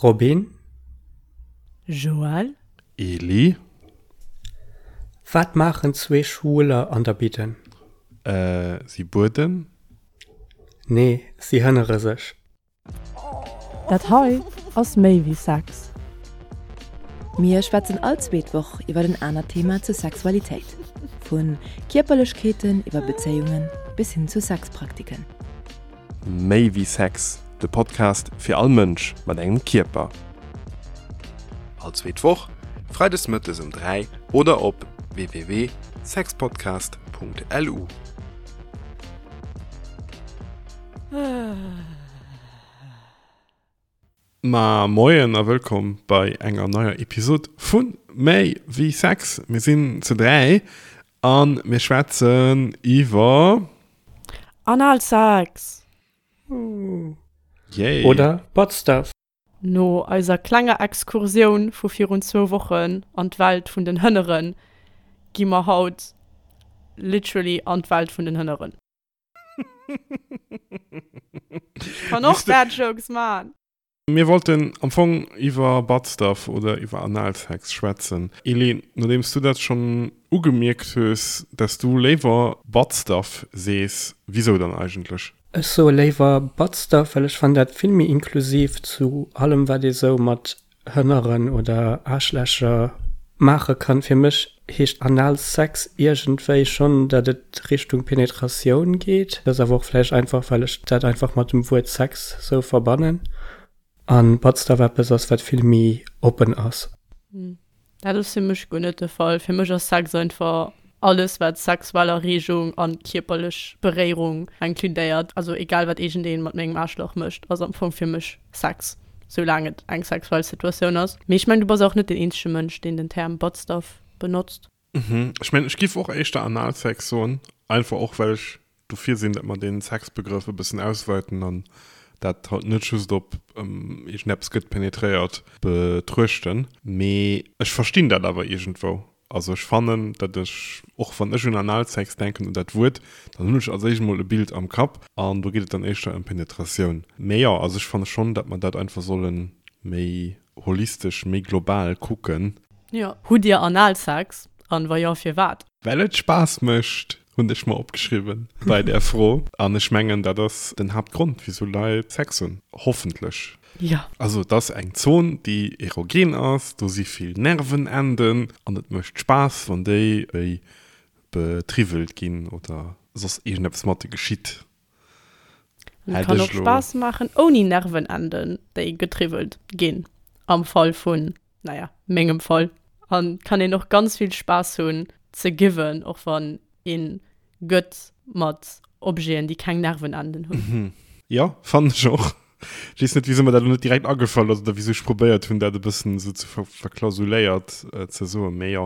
Robin. Joël. Eli. Wat maachen zwee Schwuler an der Bidden? Si bueden. Nee, si hënnere sech. Dat hei ass méi wéi Sex. Mir schwätzen all zweet Woch iwwer en anert Thema zur Sexualitéit. Vu Kierperlechkeeten iwwer Bezéiungen bis hin zu Sexpraktiken. Méi wéi Sex, de Podcast fir all Mënsch mat engem Kierper. All zweet Woch, freides mëttes um 3 oder op www.sexpodcast.lu. Ma moien a wëllkomm bei enger neier Episod vu Méi wéi Sex. Mir sinn zu 3 a mir schwätzen iwwer. Analsex! Yay! Oder Butt Stuff. No eiser klenger Exkursioun vu virun zwou Wochen an d'Welt vun den Hënneren, gi mer haut literally an d'Welt vun den Hënneren. Ech kann och Dad Jokes man. Mir wollten am Fong iwwer Butt Stuff oder iwwer Analsex schwätzen. Elé, nodeems du dat schonn ugemierkt hues, dass du léiwer Butt Stuff sees, wisou dann eigentlech? Ech soe léiwer Butt Stuff, well ech fannen dat vill méi inklusiv zu allem wat ee sou mat Hënneren oder Aarschlächer maache kann. Fir mech heescht Analsex iergendwéi schonn, datt et Richtung Penetratioun geet. Dat ass awer och vläicht einfach, well ech dat einfach mat dem Wuert Sex sou verbannen. An Butt Stuff eppes ass, wat vill méi oppen ass. Dat ass fir mech guer net de Fall. Fir mech ass Sex einfach alles, wat sexuell Erreegung an kierperlech Beréierung inkludéiert. Also egal wat iergendeen mat mengem Aarschlach mécht, ass am Fong fir mech Sex, soulaang et eng sexuell Situatioun ass. Mee ech mengen, du bass och net den eenzege Mënsch, deen den Term Buttstuff benotzt. Ech mengen, ech giff och éischter Analsex soen, einfach och well ech dofir sinn, datt mer dee Sexbegrëff e bëssen ausweiten an dat halt net just op iergendeppes gëtt penetréiert betruechten. Mee ech verstinn dat awer iergendwou. Also ech fannen, datt ech, och wann ech un Analsex denken, un dat Wuert, dann hunn ech als éischt emol e Bild am Kapp an do geet et dann éischter ëm Penetratioun. Mee jo, also ech fanne schonn, datt mer dat einfach solle méi holistesch, méi global kucken. Jo. Hutt Dir Analsex? An wa jo, firwat? Well et Spaass mécht, hunn ech mer opgeschriwwen bei där Fro. An ech mengen, dat ass den Haaptgrond, wisou Leit Sex hunn. Hoffentlech. Jo. Also et ass eng Zon, déi erogen ass, do si vill Nervenenden an et mécht Spaass, wann déi wéi betriwwelt ginn oder soss iergendeppes mat de geschitt. An et kann och Spaass maachen ouni Nervenenden, déi getriwwelt ginn, am Fall vun naja, mengem Fall. An kann een och ganz vill Spaass hunn ze given, och wann een gëtt mat Objeten, déi keng Nervenenden hunn. Jo, fannen ech och. Ech weess net, wisou mer dat elo net direkt agefall ass oder wisou ech probéiert hunn, dat e bëssen esou ze verklausuléiert ze soen. Mee jo,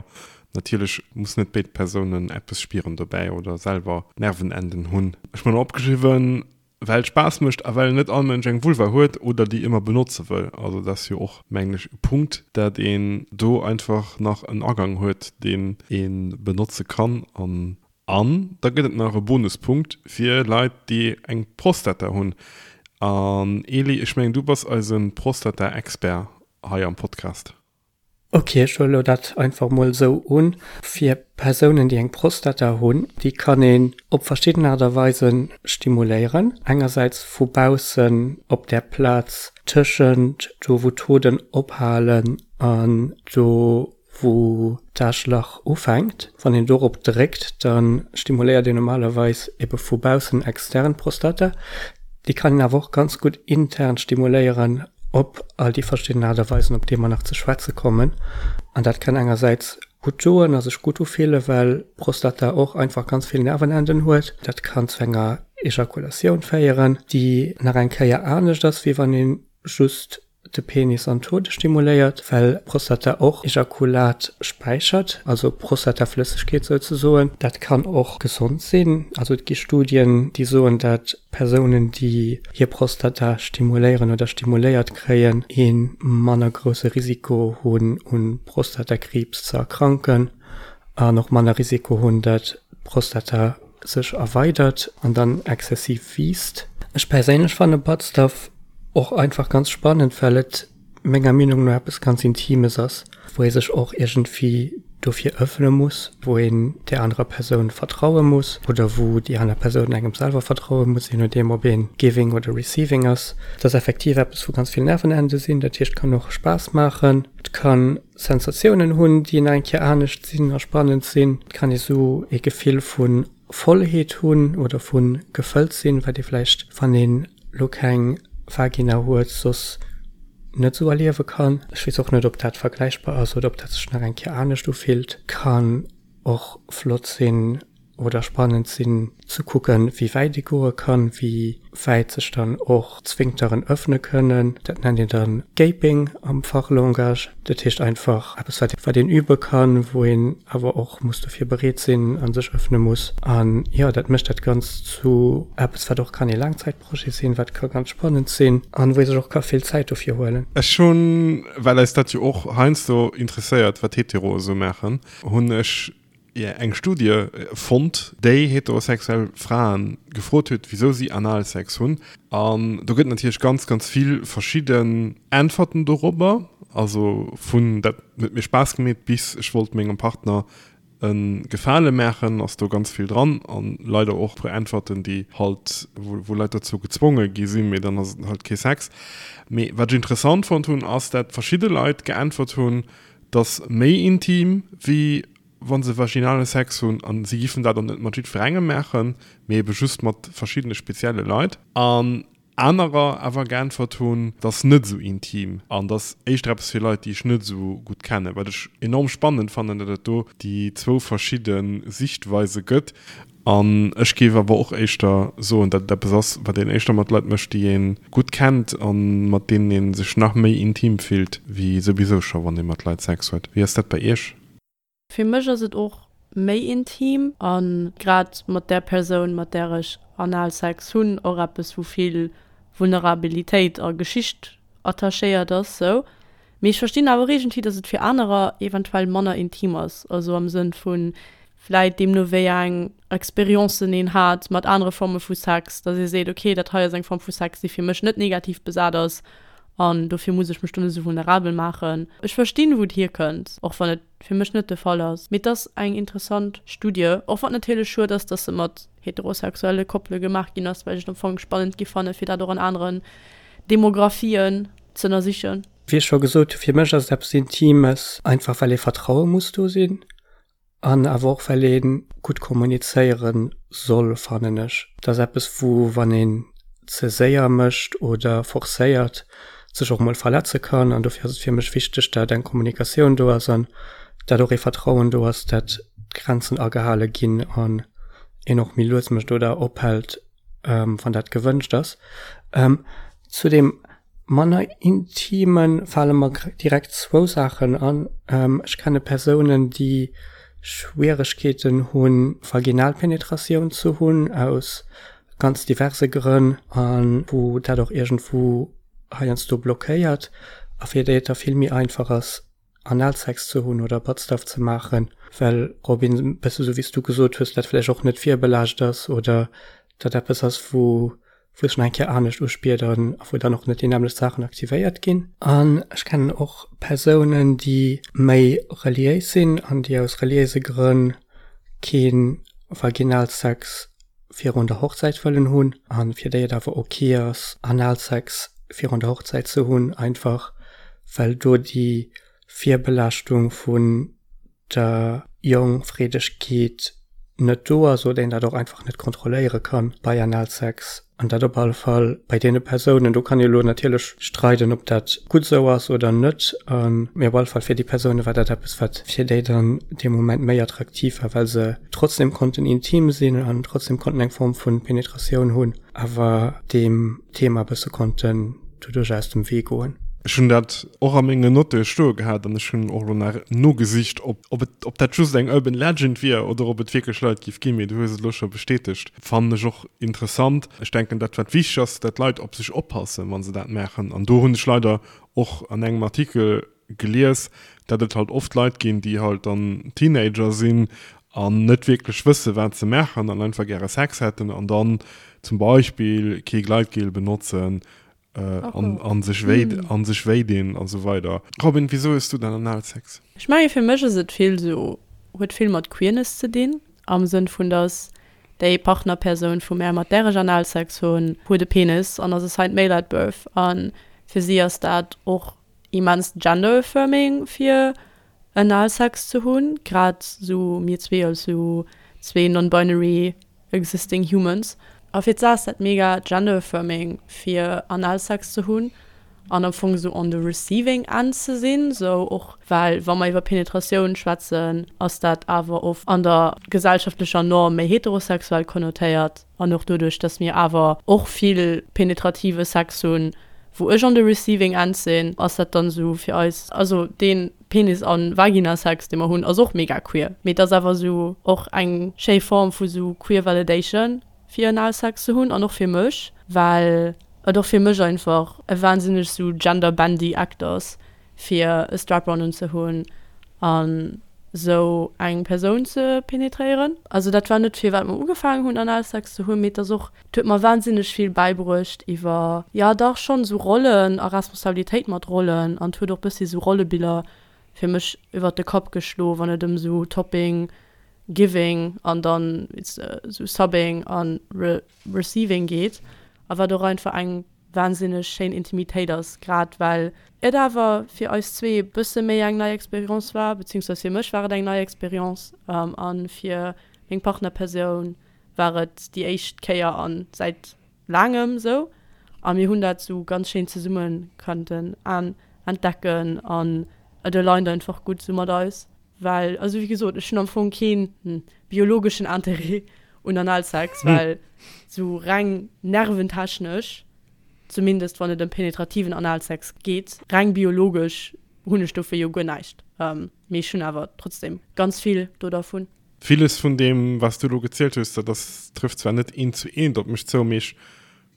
natierlech mussen net béid Persounen eppes spieren dobäi oder selwer Nervenenden hunn. Ech hu mer nach opgeschriwwen, Well et Spaass mécht a well net all Mënsch eng Vulva huet oder déi ëmmer benotze wëll. Also dat ass jo och, mengen ech, e Punkt, dat een do einfach nach en Agang huet, deen ee benotze kann. An an da gëtt et nach e Bonuspunkt fir Leit, déi eng Prostata hunn. An Eli, ech mengen, du bass eise Prostata-Expert hei am Podcast. Ok, ech huele lo dat einfach mol esou un. Fir Persounen, déi eng Prostata hunn, déi kann een op verschidden Aart a Weise stimuléieren. Engersäits vu baussen op där Plaz tëschent do wou d'Hoden ophalen an do wou d'Aarschlach ufänkt. Wann een dorop dréckt, da stimuléiert een normalerweis ebe vu baussen extern d'Prostata. Déi kann een awer och ganz gutt intern stimuléieren op all déi verschidden Aart a Weisen, op déi mer nach ze schwätze kommen. An dat kann engersäits gutt doen a sech gutt ufillen, well d'Prostata och einfach ganz vill Nervenenden huet. Dat kann zu enger Ejakulatioun féieren, déi nach eng Kéier anescht ass, wéi wann ee just de Penis an d'Hode stimuléiert, well d'Prostata och Ejakulat späichert, also Prostataflëssegkeet souzesoen. Dat kann och gesond sinn. Also et gi Studien, déi soen, dat Persounen, déi hir Prostata stimuléieren oder stimuléiert kréien, ee manner grousse Risiko hunn, un Prostatakriibs ze erkranken an och manner Risiko hunn, dat d'Prostata sech erweidert an dann exzessiv wiisst. Ech perséinlech fanne Butt Stuff och einfach ganz spannend, well et. menger Meenung no eppes ganz Intimes ass, wou ee sech och iergendwéi dofir ëffne muss, wou een där anerer Persoun vertraue muss oder wou déi aner Persoun engem selwer vertraue muss, je nodeem ob ee giving oder receiving ass. Et ass effektiv eppes, wou ganz vill Nervenende sinn, dat heescht, et kann och Spaass maachen, et ka Sensatiounen hunn, déi nach eng Kéier anescht sinn a spannend sinn. Et kann ee sou ee Gefill vu Vollheet hunn oder vu gefëllt sinn, wat ee vläicht, wann een lo keng Vagina huet, soss net sou erliewe kann. Ech weess och net, ob dat vergläichbar ass oder ob dat sech nach eng Kéier anescht ufillt. Kann och flott sinn oder spannend sinn ze kucken, wéi wäit ee goe kann, wéi wäit sech dann och d'Sphinkteren ëffne kënnen. Dat nennt een dann Gaping am Fachlangage. Dat heescht einfach eppes, wat wat een übe kann, wou een awer och muss dofir bereet sinn a sech ëffne muss. An jo, dat mécht dat Ganzt zu eppes, wat och kann ee Laangzäitprojet sinn, wat ka ganz spannend sinn an wou ee sech och ka vill Zäit dofir huelen. Ech hunn, well eis dat jo och heiansdo interesséiert, wat Heteroe sou maachen, hunn ech eng Studie fonnt, déi heterosexuell Frae gefrot huet, wisou si Analsex hunn. An do gëtt natierlech ganz, ganz vill verschidden Äntwerten dorobber. Also vun dat huet mir Spaass gemeet bis ech wollt mengem Partner e Gefale maachen, ass do ganz vill dran. An leider och e puer Äntwerten, déi halt, wou Leit dozou gezwonge gi sinn, mee dann ass et halt kee Sex. Mee wat ech interessant fonnt hunn, ass dat verschidde Leit geäntwert hunn, 't ass méi intim wéi wa se vaginale Sex hunn an si giffen dat och net mat jiddwerengem maachen, mee ebe just mat verschiddene spezielle Leit. An anerer awer geäntwert hunn, 't ass net esou intim an 't ass éischter eppes fir Leit, déi ech net esou gutt kennen. Wat ech enorm spannend fannen, datt et do déi zwou verschidde Sichtweise gëtt. An ech géif awer och éischter soen, datt et eppes ass, wat een éischter mat Leit mécht, déi ee gutt kennt a mat deenen ee sech nach méi intim fillt, wéi souwisou scho wann ee mat Leit Sex huet. Wéi ass dat bei Iech? Fir mech ass et och méi intim a grad mat där Persoun, mat där ech Analsex hunn, och eppes, wou vill Vulnerabilitéit a Geschicht attachéiert ass sou. Mee ech verstinn awer och iergendwéi, datt et fir anerer eventuell manner intim ass, also am Sënn vu vläit deemno wéi eng Experiencen een hat mat anere Forme vu Sex, datt ee seet, okay, dat hei ass eng Form vu Sex, déi fir mech net negativ besat ass an dofir muss ech mech do net esou vulnerabel maachen. Ech verstinn, wou et hierkënnt, och wann et fir mech net de Fall ass. Mee et ass eng interessant Studie, och wann et natierlech schued ass, datt se mat heterosexuelle Koppele gemaach ginn ass, well ech et am Fong spannend gi fanne fir dat och an aneren Demografien z'ënnersichen. Wéi ech scho gesot hu, fir mech ass et eppes Intimes, einfach well ee Vertraue muss do sinn an awer och well ee gutt kommunizéiere soll, fannen ech. Et ass eppes, wou, wann een ze séier mécht oder forcéiert, sech och mol verletze kann. An dofir ass et fir mech wichteg, dat eng Kommunikatioun do ass an dat och ee Vertrauen do ass, dat d'Grenzen agehale ginn an een och méi lues mécht oder ophält, wann dat gewënscht ass. Zu deem manner Intime fale mer direkt zwou Saachen an. Ech kenne Persounen, déi Schwieregkeeten hunn, Vaginalpenetratioun ze hunn, aus ganz diverse Grënn, a wou dat och iergendwou heiansdo blockéiert a fir déi et da vill méi einfach ass, Analsex ze hunn oder Buttstuff ze maachen, well, Robin, e bësse sou wéi s du gesot hues, dat vläicht och net virbelaascht ass oder dat eppes ass, wou wou sech nach eng Kéier anescht uspiert an wou dann och net déi nämmlecht Saachen aktivéiert ginn. An ech kennen och Persounen, déi méi reliéis sinn an déi aus reliéise Grënn kee Vaginalsex virun der Hochzäit wëllen hunn a fir déi et awer ok ass, Analsex virun der Hochzäit ze hunn, einfach well do déi Virbelaaschtung vun der Jongfreedegkeet net do ass oder een dat och einfach net kontrolléiere kann bei Analsex an dat op alle Fall bei deene Persounen, do kann ee lo natierlech streiden, ob dat gutt esou ass oder net, mee op alle Fall fir déi Persoune war dat eppes, wat fir déi dann dee Moment méi attraktiv war, well se trotzdem konnten intim sinn an trotzdem konnten eng Form vu Penetratioun hunn, awer deem Thema e bësse konnten doduerch aus dem Wee goen. Ech hunn dat och a mengen Notte stoe gehat an ech hunn och elo nach nogesicht, ob, ob et, ob dat just eng Urban Legend wier oder ob et wierklech Leit giff ginn, mee du hues et elo scho bestätegt. Fannen ech och interessant. Ech denken, dat wat wichteg ass, dat d'Leit op sech oppassen, wa se dat maachen. An do hunn ech leider och an engem Artikel gelies, dat et halt oft Leit ginn, déi halt dann Teenager sinn an net wierklech wësse wat se maachen an einfach gäre Sex hätten an dann zum Beispill kee Gleitgel benotzen. An sech wéi an sech wéi dinn an esou weider. Robin, wisou hues du dann Analsex? Ech menge fir mech ass et vill sou, huet vill mat Queerness ze dinn, am Sënn vun dass déi Partnerpersoun vu mär, mat där ech Analsex hunn, huet e Penis an ass assigned male at birth a fir si ass dat och immens gender affirming fir Analsex ze hunn, grad sou mir zwee als sou zwee non-binary existing humans. A fir d'Sa ass dat mega gender affirming fir Analsex ze hunn an am Fong sou on the receiving end ze sinn, sou och well wa mer iwwer Penetratioun schwätzen, ass dat awer oft an der gesellschaftlecher Norm méi heterosexuell konnotéiert an och doduerch, dass mir awer och vill penetrative Sex hunn, wou ech on the receiving end sinn, ass dat dann sou fir eis, also deen Penis an Vagina-Sex dee mer hunn ass och mega queer, mee et ass awer sou och eng schéi Form vu sou queer validation fir Analsex ze hunn an och fir mech, well et och fir mech einfach e wahnsinneg sou gender-bendy Act ass fir e Strap-on unzehunn an sou eng Persoun ze penetréieren. Also dat war net firwat mer ugefaangen hunn Analsex ze hunn, mee et ass och, et huet mer wahnsinneg vill bäibruecht iwwer, jo dach schonn esou Rollen a Responsabilitéit mat Rollen an et huet och bëssi esou Rollebiller fir mech iwwert de Kapp geschlo wann et ëm esou Topping, Giving an dann esou Subbing an Receiving geet a wat och einfach eng wahnsinneg schéin Intimitéit ass, grad well et awer fir eis zwee e bësse méi eng nei Expérience war, beziehungsweise fir mech war et eng nei Expérience a fir meng Partnerpersoun war et déi éischt Kéier a säit laangem esou a mir hunn dat esou ganz schéin zesumme konnten entdecken an et aligned einfach gutt esou mat eis, well also wéi gesot ech hunn am Fong keen biologeschen Interêt un Analsex, well sou reng nerventechnesch, zumindest wann et ëm penetrativen Analsex geet, reng biologesch hunn ech dofir jo guer näischt. Mee ech hunn awer trotzdem ganz vill do dervun. Villes vun deem, wat s du elo gezielt hues, dat ass, trëfft zwar net eent zu eent op mech zou, mee ech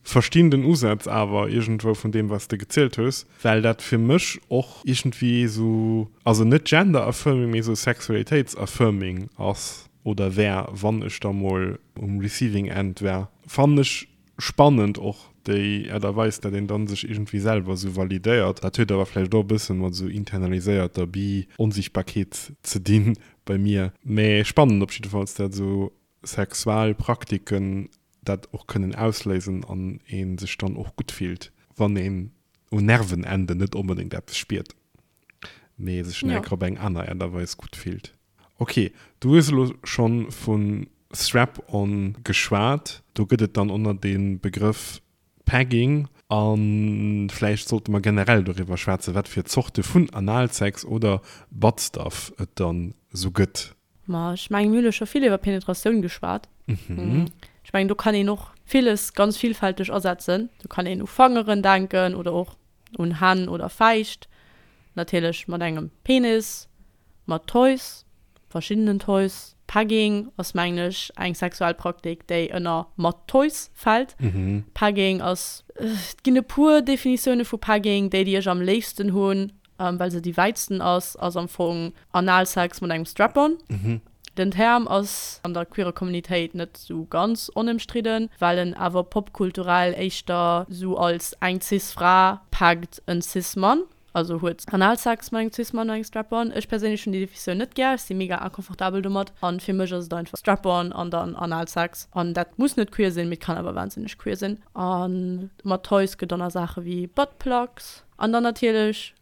Verstinn den Usaz awer iergendwou vun deem wat s de gezielt hues, well dat fir mech och iergendwéi esou, also net gender affirming, mee esou sexualitéits affirming ass oder wär, wann ech da mol um receiving end wär. Fannen ech spannend och déi Aart a Weis, dat een dann sech iergendwéi selwer esou validéiert. Dat huet awer vläicht och e bëssen mat esou internaliséierter Bi-Onsichtbarkeet ze dinn bei mir. Mee spannend op jiddefalls dat esou sexual Praktiken dat och kënnen ausléisen an ee sech dann och gutt fillt, wann een un Nervenenden net onbedéngt eppes spiert, mee sech nach eng Kéier op eng aner Aart a Weis gutt fillt. Ok, du hues elo schonn vu Strap-on geschwat. Do gëtt et dann ënner de Begrëff Pegging. A vläicht sollte mer generell doriwwer schwätzen, wat fir Zorte vun Analsex oder Buttstuff et dann esou gëtt. Ma ech mengen, mir hunn elo scho vill iwwer Penetratioun geschwat. Ech mengen, do kann een och villes ganz villfälteg asetzen. Do kann een u Fangeren denken oder och un Hänn oder Fäischt, natierlech mat engem Penis, mat Toys, verschiddenen Toys. Pegging ass, mengen ech, eng sexuell Praktik, déi ënner mat Toys fält. Pegging ass, et ginn e puer Definitioune vu Pegging, déi, déi ech am léifsten hunn, well se déi wäitsten ass, ass am Fong Analsex mat engem Strap-on. Den Term ass an der queerer Communitéit net sou ganz onëmstridden, well en awer popkulturell éischter sou als eng cis Fra peggt en cis Mann, also huet Analsex mat engem cis Mann an engem Strap-on. Ech perséinlech hunn déi Definitioun net gär, ech si mega inconfortabel domat an fir mech ass et einfach Strap-on an dann Analsex an dat muss net queer sinn, mee et kann awer wahnsinneg queer sinn. A mat Toys gëtt dann nach Saache wéi Buttplugs. An dann natierlech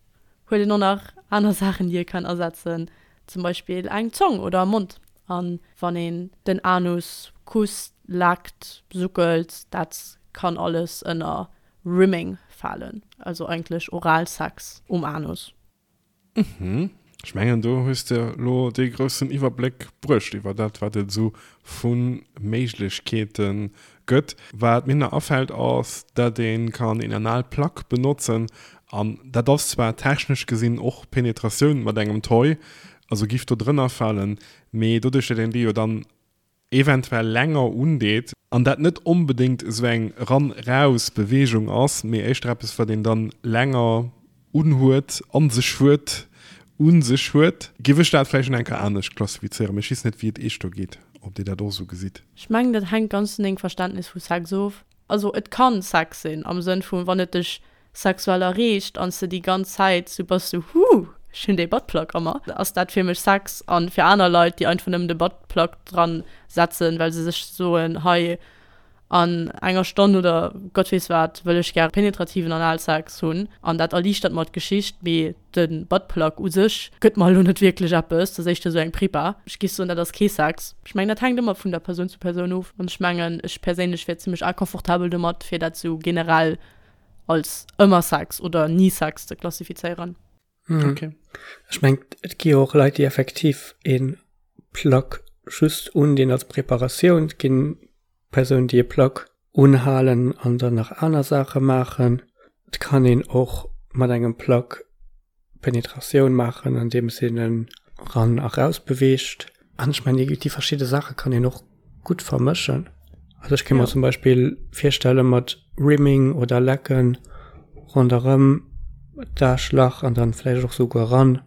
huet een och nach aner Saachen, déi ee kann asetzen, zum Beispill eng Zong oder e Mond. An wann een den Anus kusst, leckt, suckelt, dat kann alles ënner Rimming falen, also eigentlech Oralsex um Anus. Mhm. Ech mengen do hues de lo dee groussen Iwwerbléck bruecht iwwer dat wat et esou vu Méiglechkeete gëtt. Wat mir nach afält ass, dat ee kann een Analplug benotzen an dat ass zwar technesch gesinn och Penetratioun mat engem Toy, also giff do drënner falen, mee doduerch dat een dee jo dann eventuell länger undeet, an dat net onbedéngt esou eng Ran-Raus Beweegung ass, mee éischter eppes wat een dann länger unhuet, an sech huet, un sech huet, giff ech dat vläicht nach eng Kéier anescht klassifizéieren, mee ech weess net wéi et iech do geet, ob dir dat och esou gesitt. Ech mengen dat hänkt ganz vun dengem Verständnis vu Sex of. Also et kann Sex sinn am Sënn vun wann et dech sexuell erreegt an s de déi ganz Zäit sou bass sou huh ech hunn dee Buttplug a mer, ass dat fir mech Sex. An fir aner Leit déi einfach nëmmen de Buttplug dran setzen well se sech soen hei an enger Stonn oder Gott weess wat wëll ech gär penetrativen Analsex hunn an dat erliichtert mer d'Geschicht, mee de Buttplug u sech gëtt mer elo net wierklech eppes, dat ass éischter esou eng Prepa. Ech géif soen, dat ass kee Sex. Ech mengen, dat hänkt ëmmer vun der Persoun zu Persoun of an ech mengen, ech perséinlech wier zimmlech inconfortabel domat, fir dat esou generell als ëmmer Sex oder ni Sex ze klassifizéieren. Okay. Ech mengen, et gi jo och Leit, déi effektiv ee Plug just undinn als Preparatioun. Et ginn Persounen, déi e Plug unhalen an dann nach aner Saache maachen. Et kann een och mat engem Plug Penetratioun maachen, andeems een en ran a raus beweegt. An ech mengen, déi verschidde Saache kann een och gutt vermëschen. Also ech kéint mer zum Beispill virstelle mat Rimming oder Lecken ronderëm d'Aarschlach an dann vläicht och souguer ran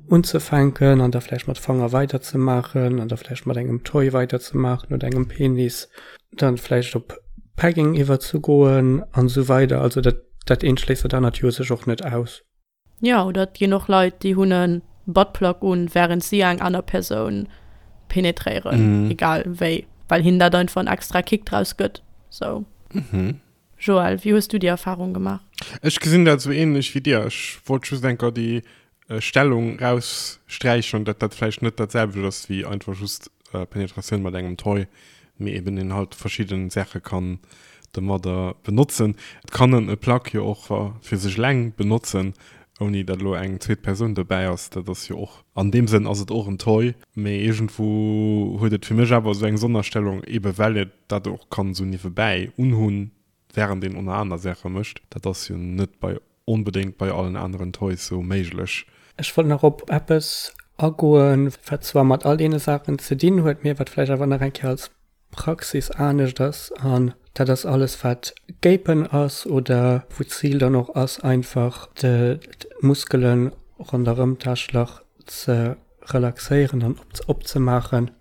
unzefänken an da vläicht mat Fanger weiderzemaachen an da vläicht mat engem Toy weiderzemaachen oder engem Penis, dann vläicht op Pegging iwwerzegoen an esou weider. Also dat dat eent schléisst dat anert jo sech och net aus. Jo, oder et ginn och Leit, déi hunn e Buttplug un, wärend si eng aner Persoun penetréieren, egal wéi, well hinnen dat einfach en extra Kick draus gëtt. Sou. Joël, wéi hues du déi Erfarung gemaach? Ech gesinn dat esou ähnlech wéi dir. Ech wollt just enker déi Stellung raussträichen, dat dat vläicht net dat selwecht ass wéi einfach just Penetratioun mat engem Toy, mee eben een halt verschidden Saache kann domadder benotzen. Et kann en e Plug jo och fir sech eleng benotzen, ouni dat elo eng zweet Persoun dobäi ass. Dat ass jo och, an deem Sënn ass et och en Toy, mee iergendwou huet et fir mech awer esou eng Sonnerstellung, ebe well et dat och kann esou niewebäi unhunn, während een oner aner Saache mécht. Dat ass jo net bei onbedéngt bei allen aneren Toys sou méiglech. Ech wollt nach op eppes agoen, wat zwar mat all deene Saachen ze dinn huet, mee wat vläicht awer nach eng Kéier als Praxis anescht ass, an dat ass alles, wat Gapen ass oder wou d'Zil dann och ass, einfach d'Muskele ronderëm d'Aarschlach ze relaxéieren an opzemaachen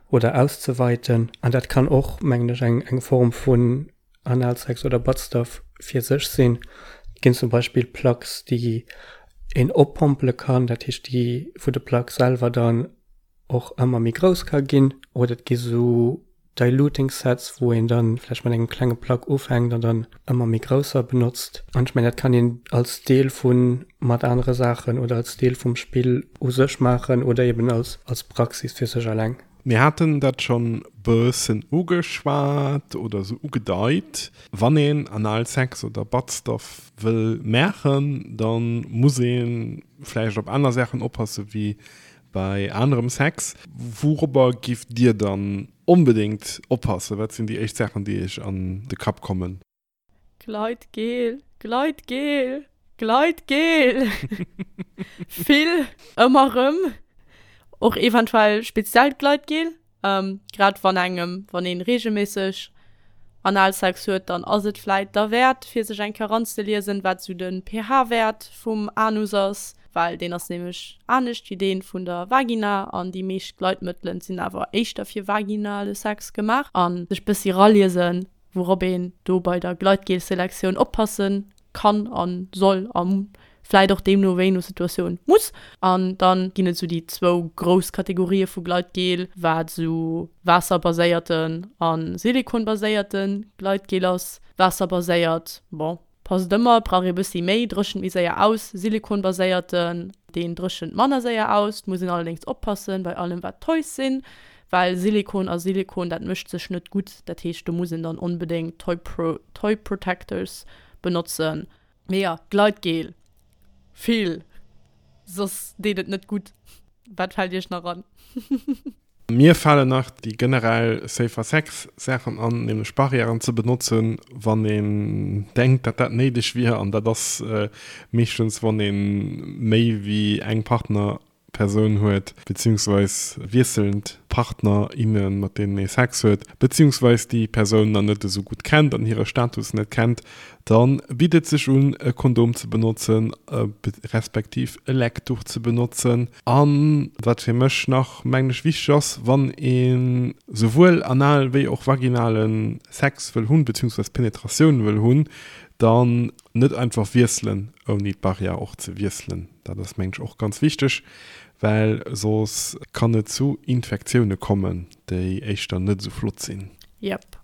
oder auszeweiten. An dat kann och, mengen ech, eng Form vun Analsex oder Buttstuff fir sech sinn. Et ginn zum Beispill Plugs, déi een oppompele kann, dat heescht déi, wou de Plug selwer dann och ëmmer méi grouss ka ginn. Oder et gi sou Diluting Sets, wou een dann vläicht mat engem klenge Plug ufänkt an dann ëmmer méi grousser benotzt. An ech mengen, dat kann een als Deel vu mat anere Saachen oder als Deel vum Spill u sech maachen oder eben als als Praxis fir sech eleng. Mir haten dat schonn bëssen ugeschwat oder sou ugedeit. Wann een Analsex oder Buttstuff wëll maachen, da muss ee vläicht op aner Saachen oppasse wéi bei anerem Sex. Wourobber giff Dir dann onbedéngt oppassen? Wat sinn déi éischt Saachen, déi Iech an de Kapp kommen? Gleitgel, Gleitgel, Gleitgel! Vill, ëmmer rëm. Och eventuell speziellt Gleitgel. Grad wann engem, wann een regelméisseg Analsex huet, dann ass et vläit derwäert fir sech eng Kéier eranzeliesen, wat sou de pH-Wäert vum Anus ass, well deen ass nämlech anescht wéi dee vun der Vagina an déi meescht Gleitmëttelen sinn awer éischter fir vaginale Sex gemaach. An sech bëssi raliesen, wourop een do bei der Gleitgel-Selektioun oppasse kann a soll a vläit och deemno wéi no Situatioun muss. An dann ginn et esou déi zwou grouss Kategorië vu Gleitgel, wat esou waasserbaséierten a silikonbaséierte Gleitgel ass. Waasserbaséiert, bon, Passt ëmmer, brauch ee bëssi méi, dréchent méi séier aus. Silikonbaséierten, deen dréchent manner séier aus. Muss een allerdéngs oppassen bei allem wat Toys sinn, well Silikon a Silikon dat mëscht sech net gutt. Dat heescht do muss een dann onbedéngt Toy Pro Toy Protectors benotzen. Mee jo, Gleitgel vill, soss deet et net gutt. Wat fält iech nach an? Mir falen nach déi generell Safer Sex Saachen an, nämlech Barrièren ze benotzen, wann een denkt, datt dat néideg wier. An dat ass meeschtens, wann ee méi wéi eng Partner. Persoun huet, beziehungsweis wiesselnd Partner, innen, mat deenen ee Sex huet, beziehungsweis déi Persoun nach net esou gutt kennt an hire Status net kennt, da bitt et sech un, e Kondom ze benotzen, respektiv e Leckduch ze benotzen. A wat fir mech nach, mengen ech, wichteg ass, wann ee souwuel anal wéi och vaginale Sex wëll hunn, beziehungsweis Penetratioun wëll hunn, dann net einfach wiesselen, ouni d'Barrière och ze wiesselen. Dat ass, mengen ech, och ganz wichteg, well soss kann et zu Infektioune kommen, déi éischter net esou flott sinn. Yep.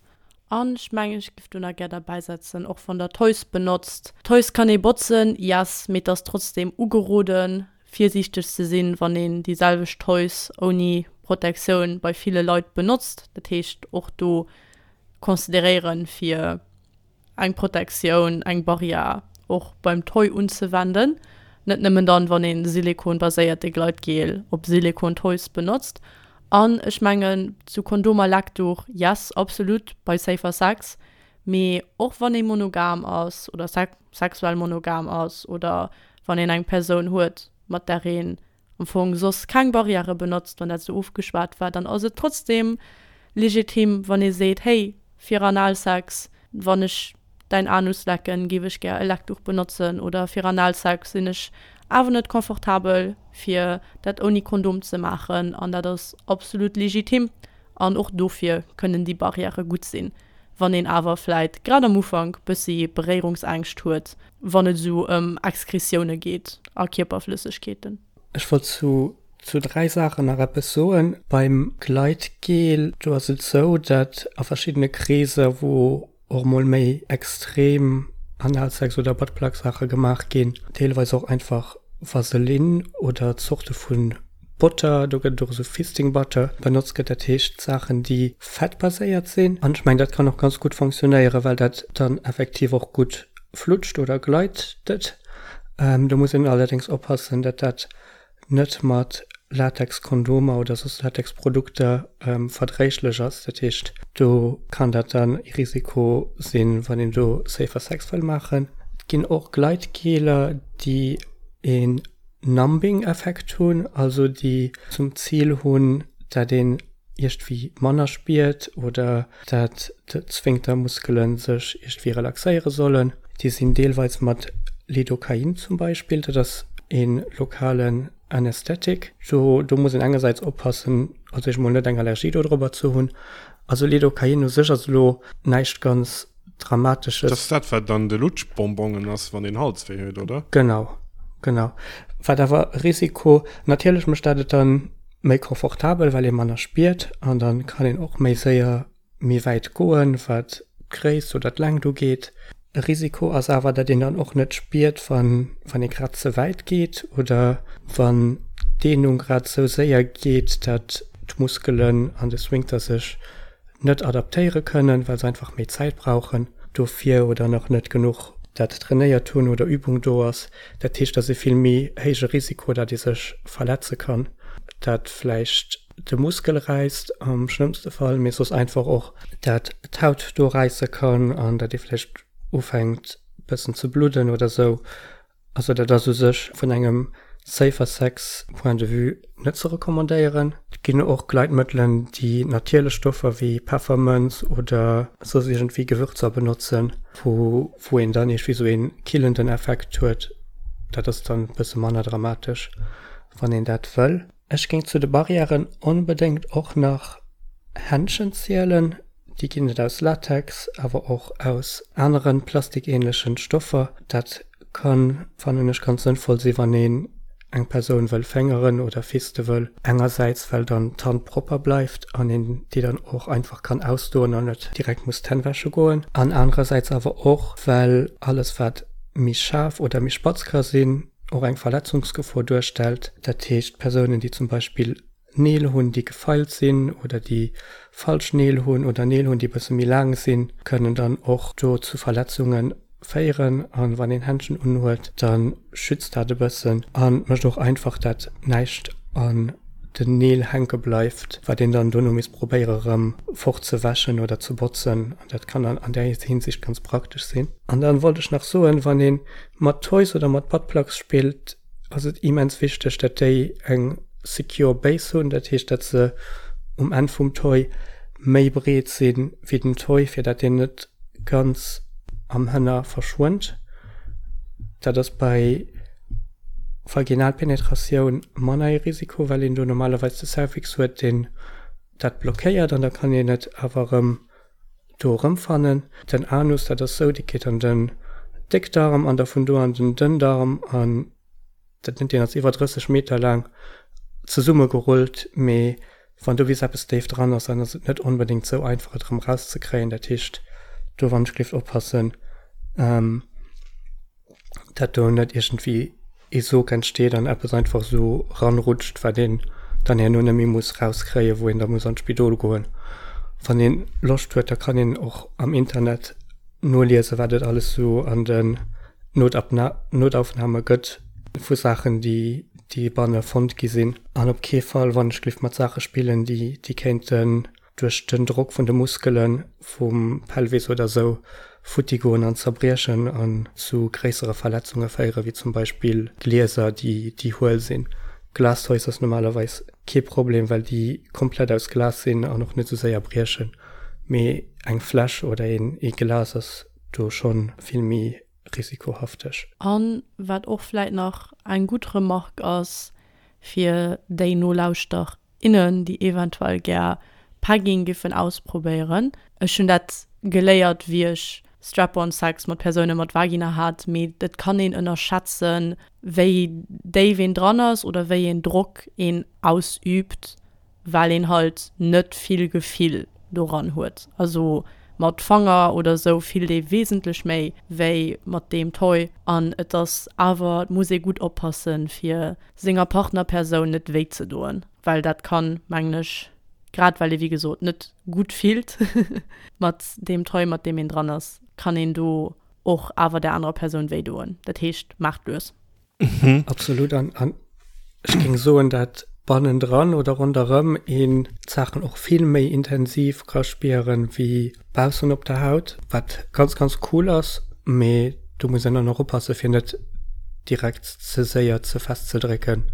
An ech mengen, ech giff do nach gär derbäisetzen, och wann der Toys benotzt. Toys kann ee botzen, yes, mee et ass trotzdem ugeroden, virsiichteg ze sinn, wann een déi selwecht Toys ouni Protektioun bei ville Leit benotzt. Dat heescht, och do consideréieren, fir eng Protektioun, eng Barrière och beim Toy unzewenden, net nëmmen dann, wann een Silikon-baséierte Gleitgel op Silikon-Toys benotzt. An ech mengen, zu Kondom a Leckduch, yes, absolut bei Safer Sex, mee och wann ee monogam ass oder sexuell monogam ass oder wann een eng Persoun huet, mat där een am Fong soss keng Barrièrë benotzt, wann dat esou ofgeschwat war, dann ass et trotzdem legitim, wann ee seet, hey, fir Analsex, wann ech däin Anus lecken, géif ech gär e Leckduch benotzen oder fir Analsex sinn ech awer net confortabel, fir dat ouni Kondom ze maachen an dat ass absolut legitim an och dofir kënnen déi Barrièrë gutt sinn. Wann een awer vläit grad am Ufank bëssi Beréierungsängscht huet, wann et esou ëm Exkretioune geet a Kierperflëssegkeeten. Ech wollt zu zu 3 Saachen nach eppes soen. Beim Gleitgel, do ass et esou, datt a verschiddene Kreeser, wou och mol méi extrem Analsex oder Buttplug-Saache gemaach ginn, deelweis och einfach Vaseline oder Zorte vu Botter, do gëtt et och esou Fisting Butter, benotzt gëtt, dat heescht Saachen déi fettbaséiert sinn. An ech mengen dat kann och ganz gutt fonctionnéieren, well dat dann effektiv och gutt flutscht oder gleitet. Do muss een allerdéngs oppassen, datt dat net mat Latexkondomer oder soss Latexprodukter verdréiglech ass. Dat heescht do kann dat dann e Risiko sinn, wann een do Safer Sex wëll maachen. Et ginn och Gleitgeler, déi een Numbing-Effekt hunn, also déi zum Zil hunn, dat een iergdwéi manner spiert oder dat d'Sphinktermuskele sech iergdwéi relaxéiere sollen. Déi sinn deelweis mat Lidocain zum Beispill, dat ass ee lokalen Anästhetik. Do do muss een engersäits oppassen, also ech mol net eng Allergie dodrobber ze hunn. Also Lidocain u sech ass elo näischt ganz Dramatesches. Dat ass dat, wat an de Lutschbonbongen ass, wann een Halswéi huet, oder? Genau, genau. Wat awer e Risiko, natierlech mécht dat et dann méi confortabel, well ee manner spiert an dann kann een och méi séier méi wäit goen, wat d'Gréisst oder d'Längt ugeet. E Risiko ass awer, dat een dann och net spiert, wann wann ee grad ze wäit geet oder wann d'Dehnung grad esou séier geet, dat d'Muskelen an de Sphinkter sech net adaptéiere kënnen, well se einfach méi Zäit brauchen dofir oder nach net genuch dat trainéiert hunn oder Übung do ass. Dat heescht, et ass e vill méi héije Risiko, datt ee sech verletze kann, dat vläicht de Muskel räisst am schlëmmste Fall, mee soss einfach och, dat d'Haut do räisse kann an datt ee vläicht ufänkt bëssen ze bludden oder sou. Also dat ass u sech vun engem Safer Sex Point de vue net ze recommandéieren. Et ginn och Gleitmëttelen, déi natierlech Stoffer wéi Peffermënz oder soss iergendwéi Gewürzer benotzen, wou wou een dann iergendwéi sou ee killenden Effekt huet. Dat ass dann e bësse manner dramatesch, wann een dat wëll. Ech géing zu de Barrièren onbedéngt och nach Händschen zielen. Déi ginn et aus Latex, awer och aus aneren plastikähnlechen Stoffer. Dat kann, fannen ech, ganz sënnvoll sinn, wann een eng Persoun wëll féngeren oder fiste wëll. Engersäits well dann d'Hand propper bleift an een déi dann och einfach kann ausdoen an net direkt muss d'Hänn wäsche goen. An anerersäits awer och, well alles wat méi schaarf oder méi spatz ka sinn, och eng Verletzungsgefor duerstellt. Dat heescht, Persounen, déi zum Beispill Neel hunn, déi gefeilt sinn oder déi falsch Neel hunn oder Neel hunn, déi e bësse méi laang sinn, kënnen dann och do zu Verletzunge féieren. A wann een Händschen unhuet, da schützt dat e bëssen a mécht och einfach, dat näischt an den Neel hänke bleift, wat een dann dono misst probéiere rëm fortzewäschen oder ze botzen. An dat kann dann an där Hinsicht ganz praktesch sinn. An dann wollt ech nach soen, wann ee mat Toys oder mat Buttplugs spillt. ass et immens wichteg, dat déi eng secure Base hunn, dat heescht, dat se um Enn vum Toy méi breet si wéi den Toy, fir dat deen net ganz am Hënner verschwënnt. Dat ass bei Vaginalpenetratioun manner ee Risiko, well een do normalerweis de Cervix huet, deen dat blockéiert an da kann een et awer erëm do erëmfannen. Den Anus, dat ass sou, dee geet an den Déckdarm an da vun do an den Dënndarm an dat nennt een ass iwwer 30 Meter laang zesummegerullt, mee wann do bis eppes déif dran ass, dann ass et net onbedéngt sou einfach et erëm erauszekréien. Dat heescht do wann ech gelift oppassen, dat do net iergendwéi ee Sog entsteet an eppes einfach esou ranrutscht, wat een dann herno net méi muss rauskréien, wou een da muss an d'Spidol goen. Wann een Loscht huet, da kann een och am Internet noliesen, wat et alles esou an den Notaufnahme gëtt vu Saachen, déi déi banne fonnt gi sinn. An op kee Fall, wann ech gelift, mat Saache spillen, déi déi kéinten duerch den Drock vun de Muskele vum Pelvis oder sou futti goen an zerbriechen an zu gréissere Verletzunge féieren, wéi zum Beispill Glieser, déi déi huel sinn. Glastoys ass normalerweis kee Problem, well déi komplett aus Glas sinn an och net sou séier briechen, mee eng Fläsch oder een ee Glas ass do schonn vill méi risikohafteg. An wat och vläit nach eng gutt Remarque ass fir déi Nolauschter innen, déi eventuell gär Pegging giffen ausprobéieren. Ech hunn dat geléiert wéi ech Strap-on Sex mat Persoune mat Vagina hat, mee et kann een ënnerschätzen, wéi déif een dran ass oder wéi een Drock een ausüübt, well een halt net vill Gefill doran huet. Also mat Fanger oder sou fillt ee wesentlech méi wéi mat deem Toy an et ass awer, et muss ee gutt oppassen fir senger Partnerpersoun net wéi ze doen, well dat kann, mengen ech, grad well ee wéi gesot net gutt fillt mat deem Toy, mat deem een dran ass, kann een do och awer der anerer Persoun wéi doen. Dat heescht, maacht lues. Absolut. An, an ech géing soen, dat bannendran oder ronderëm een d'Saachen och vill méi intensiv ka spieren, wéi baussen op der Haut, wat ganz, ganz cool ass, mee do muss een dann och oppassen, fir net direkt ze séier ze fest ze drécken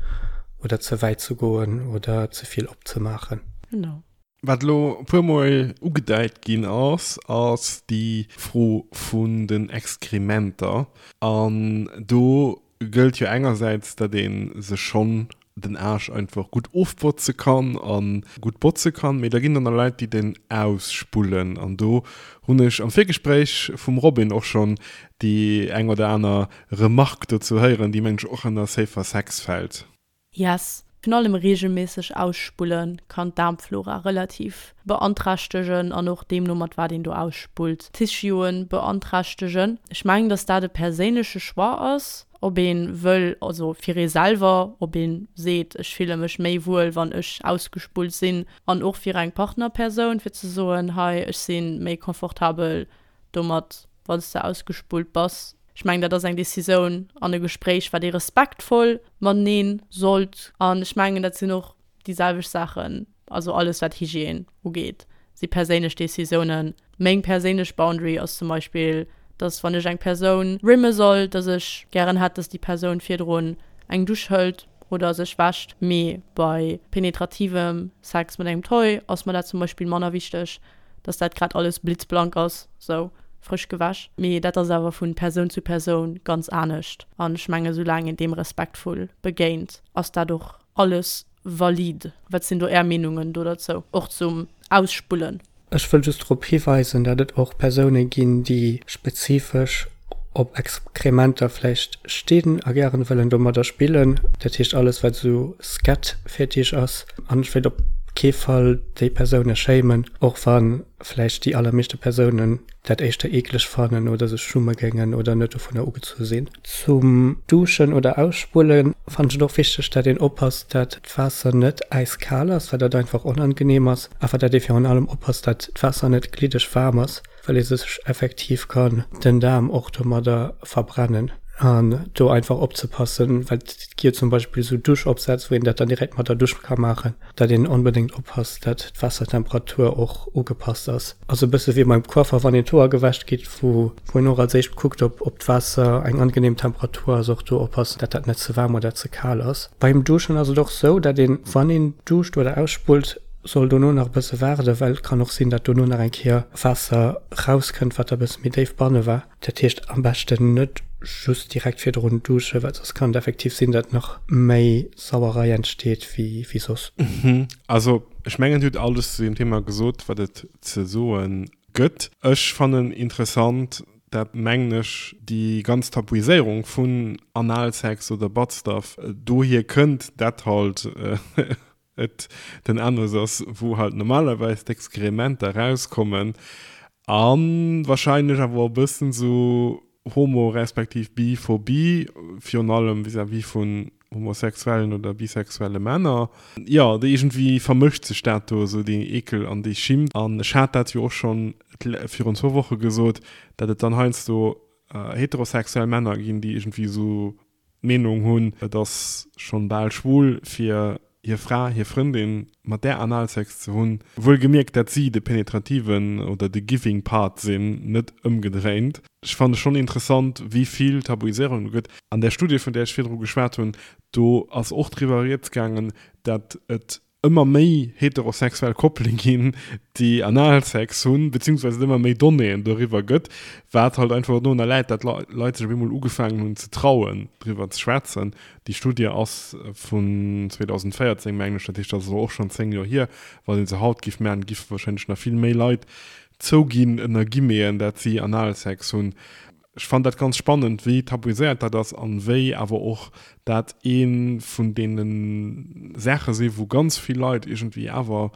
oder ze wäit ze goen oder ze vill opzemaachen. Genau. Wat elo e puer Mol ugedeit ginn ass, ass déi Fro vun den Exkrementer. An do gëllt jo engersäits, datt ee sech schonn den Aarsch einfach gutt ofbotze kann a gutt botze kann, mee da ginn der nach Leit, déi den ausspullen. An do hunn ech am Virgespréich vum Robin och schonn déi eng oder aner Remarque dozou héieren, déi mengen ech och ënner Safer Sex fält. Yes. Virun allem regelméisseg ausspullen kann d'Daarmflora relativ beanträchtegen an och deemno mat wat een do ausspullt d'Tissueën beanträchtegen. Ech mengen dass dat e perséinleche Choix ass, ob een wëll, also fir ee selwer, ob een seet ech fille mech méi wuel wann ech ausgespullt sinn an och fir eng Partnerpersoun fir ze soen hei ech si méi confortabel domat wann s de ausgespullt bass. Ech mengen, dat ass eng Decisioun an e Gespréich, wat ee respektvoll matenee sollt. An ech mengen, dat sinn och déi selwecht Saachen, also alles wat Hygiène ugeet, si perséinlech Decisiounen. Meng perséinlech Boundary ass zum Beispill, dass wann ech eng Persoun rimme soll, dass ech gären hätt, dass déi Persoun virdrun eng Dusch hëlt oder sech wäscht. Mee bei penetrativem Sex mat engem Toy ass mer dat zum Beispill manner wichteg. dass dat grad alles blitzblank ass, sou frësch gewäsch. Mee dat ass awer vu Persoun zu Persoun ganz anescht. An ech mengen, soulaang een deem respektvoll begéint, ass dat och alles valide. Wat sinn do Är Meenungen do derzou, och zum Ausspullen? Ech wëll just drop hiweisen, dat et och Persoune ginn, déi spezifesch op Exkrementer vläicht stinn a gären wëllen domadder spillen, dat heescht alles wat esou Scat-Fetisch ass. An ech wéilt op kee Fall déi Persoune shamen, och wa vläicht déi allermeeschte Persounen dat éischter eekleg fannen oder sech schumme géingen oder net dovunner ugezu sinn. Zum Duschen oder Ausspulle fannen ech et och wichteg, dat een oppasst, dat d'Waasser net äiskal ass, well dat einfach onangenehm ass, awer dat ee virun allem oppasst, dat d'Waasser net gliddeg waarm ass. well ee sech effektiv kann den Daarm och domadder verbrennen. An do einfach opzepassen, well et gi jo zum Beispill esou Duschopsätz, wou een dat dann direkt mat der Dusch ka maachen, datt een onbedéngt oppasst, datt d'Waassertemperatur och ugepasst ass. Ass e bësse wéi beim Coiffer, wann een d'Hoer gewäscht kritt, wou een och als éischt kuckt, ob ob d'Waasser eng angenehm Temperatur ass, och do oppassen, datt dat net ze waarm oder ze kal ass. Beim Duschen ass et och sou, datt een, wann een duscht oder ausspullt, soll dono nach e bësse waarden, well et kann och sinn, datt dono nach eng Kéier Waasser rauskënnt, wat da e bësse méi déif banne war. Dat heescht am beschten net just direkt virdrun duschen, well soss kann et effektiv sinn, datt nach méi Sauerei entsteet wéi wéi soss. Also ech mengen dir hutt alles zu deem Thema gesot wat et ze soe gëtt. Ech fannen interessant dat mengen ech déi ganz Tabuiséierung vun Analsex oder Buttstuff dohier kënnt, dat halt et den Anus ass, wou halt normalerweis d'Exkrementer rauskommen a wahrscheinlech awer och e bëssen esou Homo respektiv Biphobie, virun allem vis-à-vis vun homosexuellen oder bisexuelle Männer. Jo, iergendwéi vermëscht sech dat do esou, deen Eekel an déi Schimmt. An ech hat dat jo och schonn virun zwou Woche gesot, dat et dann heiansdo heterosexuell Männer ginn, déi iergendwéi esou d'Meenung hunn, et ass schonn bal schwul fir hir Fra, hir Frëndin mat där Analsex ze hunn, wuel gemierkt dat si de penetrativen oder de giving part sinn, net ëmgedréint. Ech fanne schonn interessant wéi vill Tabuiséierung do gëtt. An där Studie vun där ech virdru geschwat hunn, do ass och driwwer rieds gaangen, dat et ëmmer méi heterosexuell Koppele ginn, déi Analsex hunn, beziehungsweise et ëmmer méi Donnéeën doriwwer gëtt, wat halt einfach dorunner läit, dat Leit sech op eemol ugefaangen hunn ze trauen, driwwer ze schwätzen. Déi Studie ass vun 2014, mengen ech, dat heescht, dat ass elo och schonn 10 Joer hier. Wann ee se haut giff maachen, giffe warscheinlech nach vill méi Leit zouginn, ënner Guillemeten, dat si Analsex hunn. Ech fannen dat ganz spannend, wéi tabuiséiert dat ass an wéi awer och dat ee vun deene Saache si wou ganz vill Leit iergendwéi awer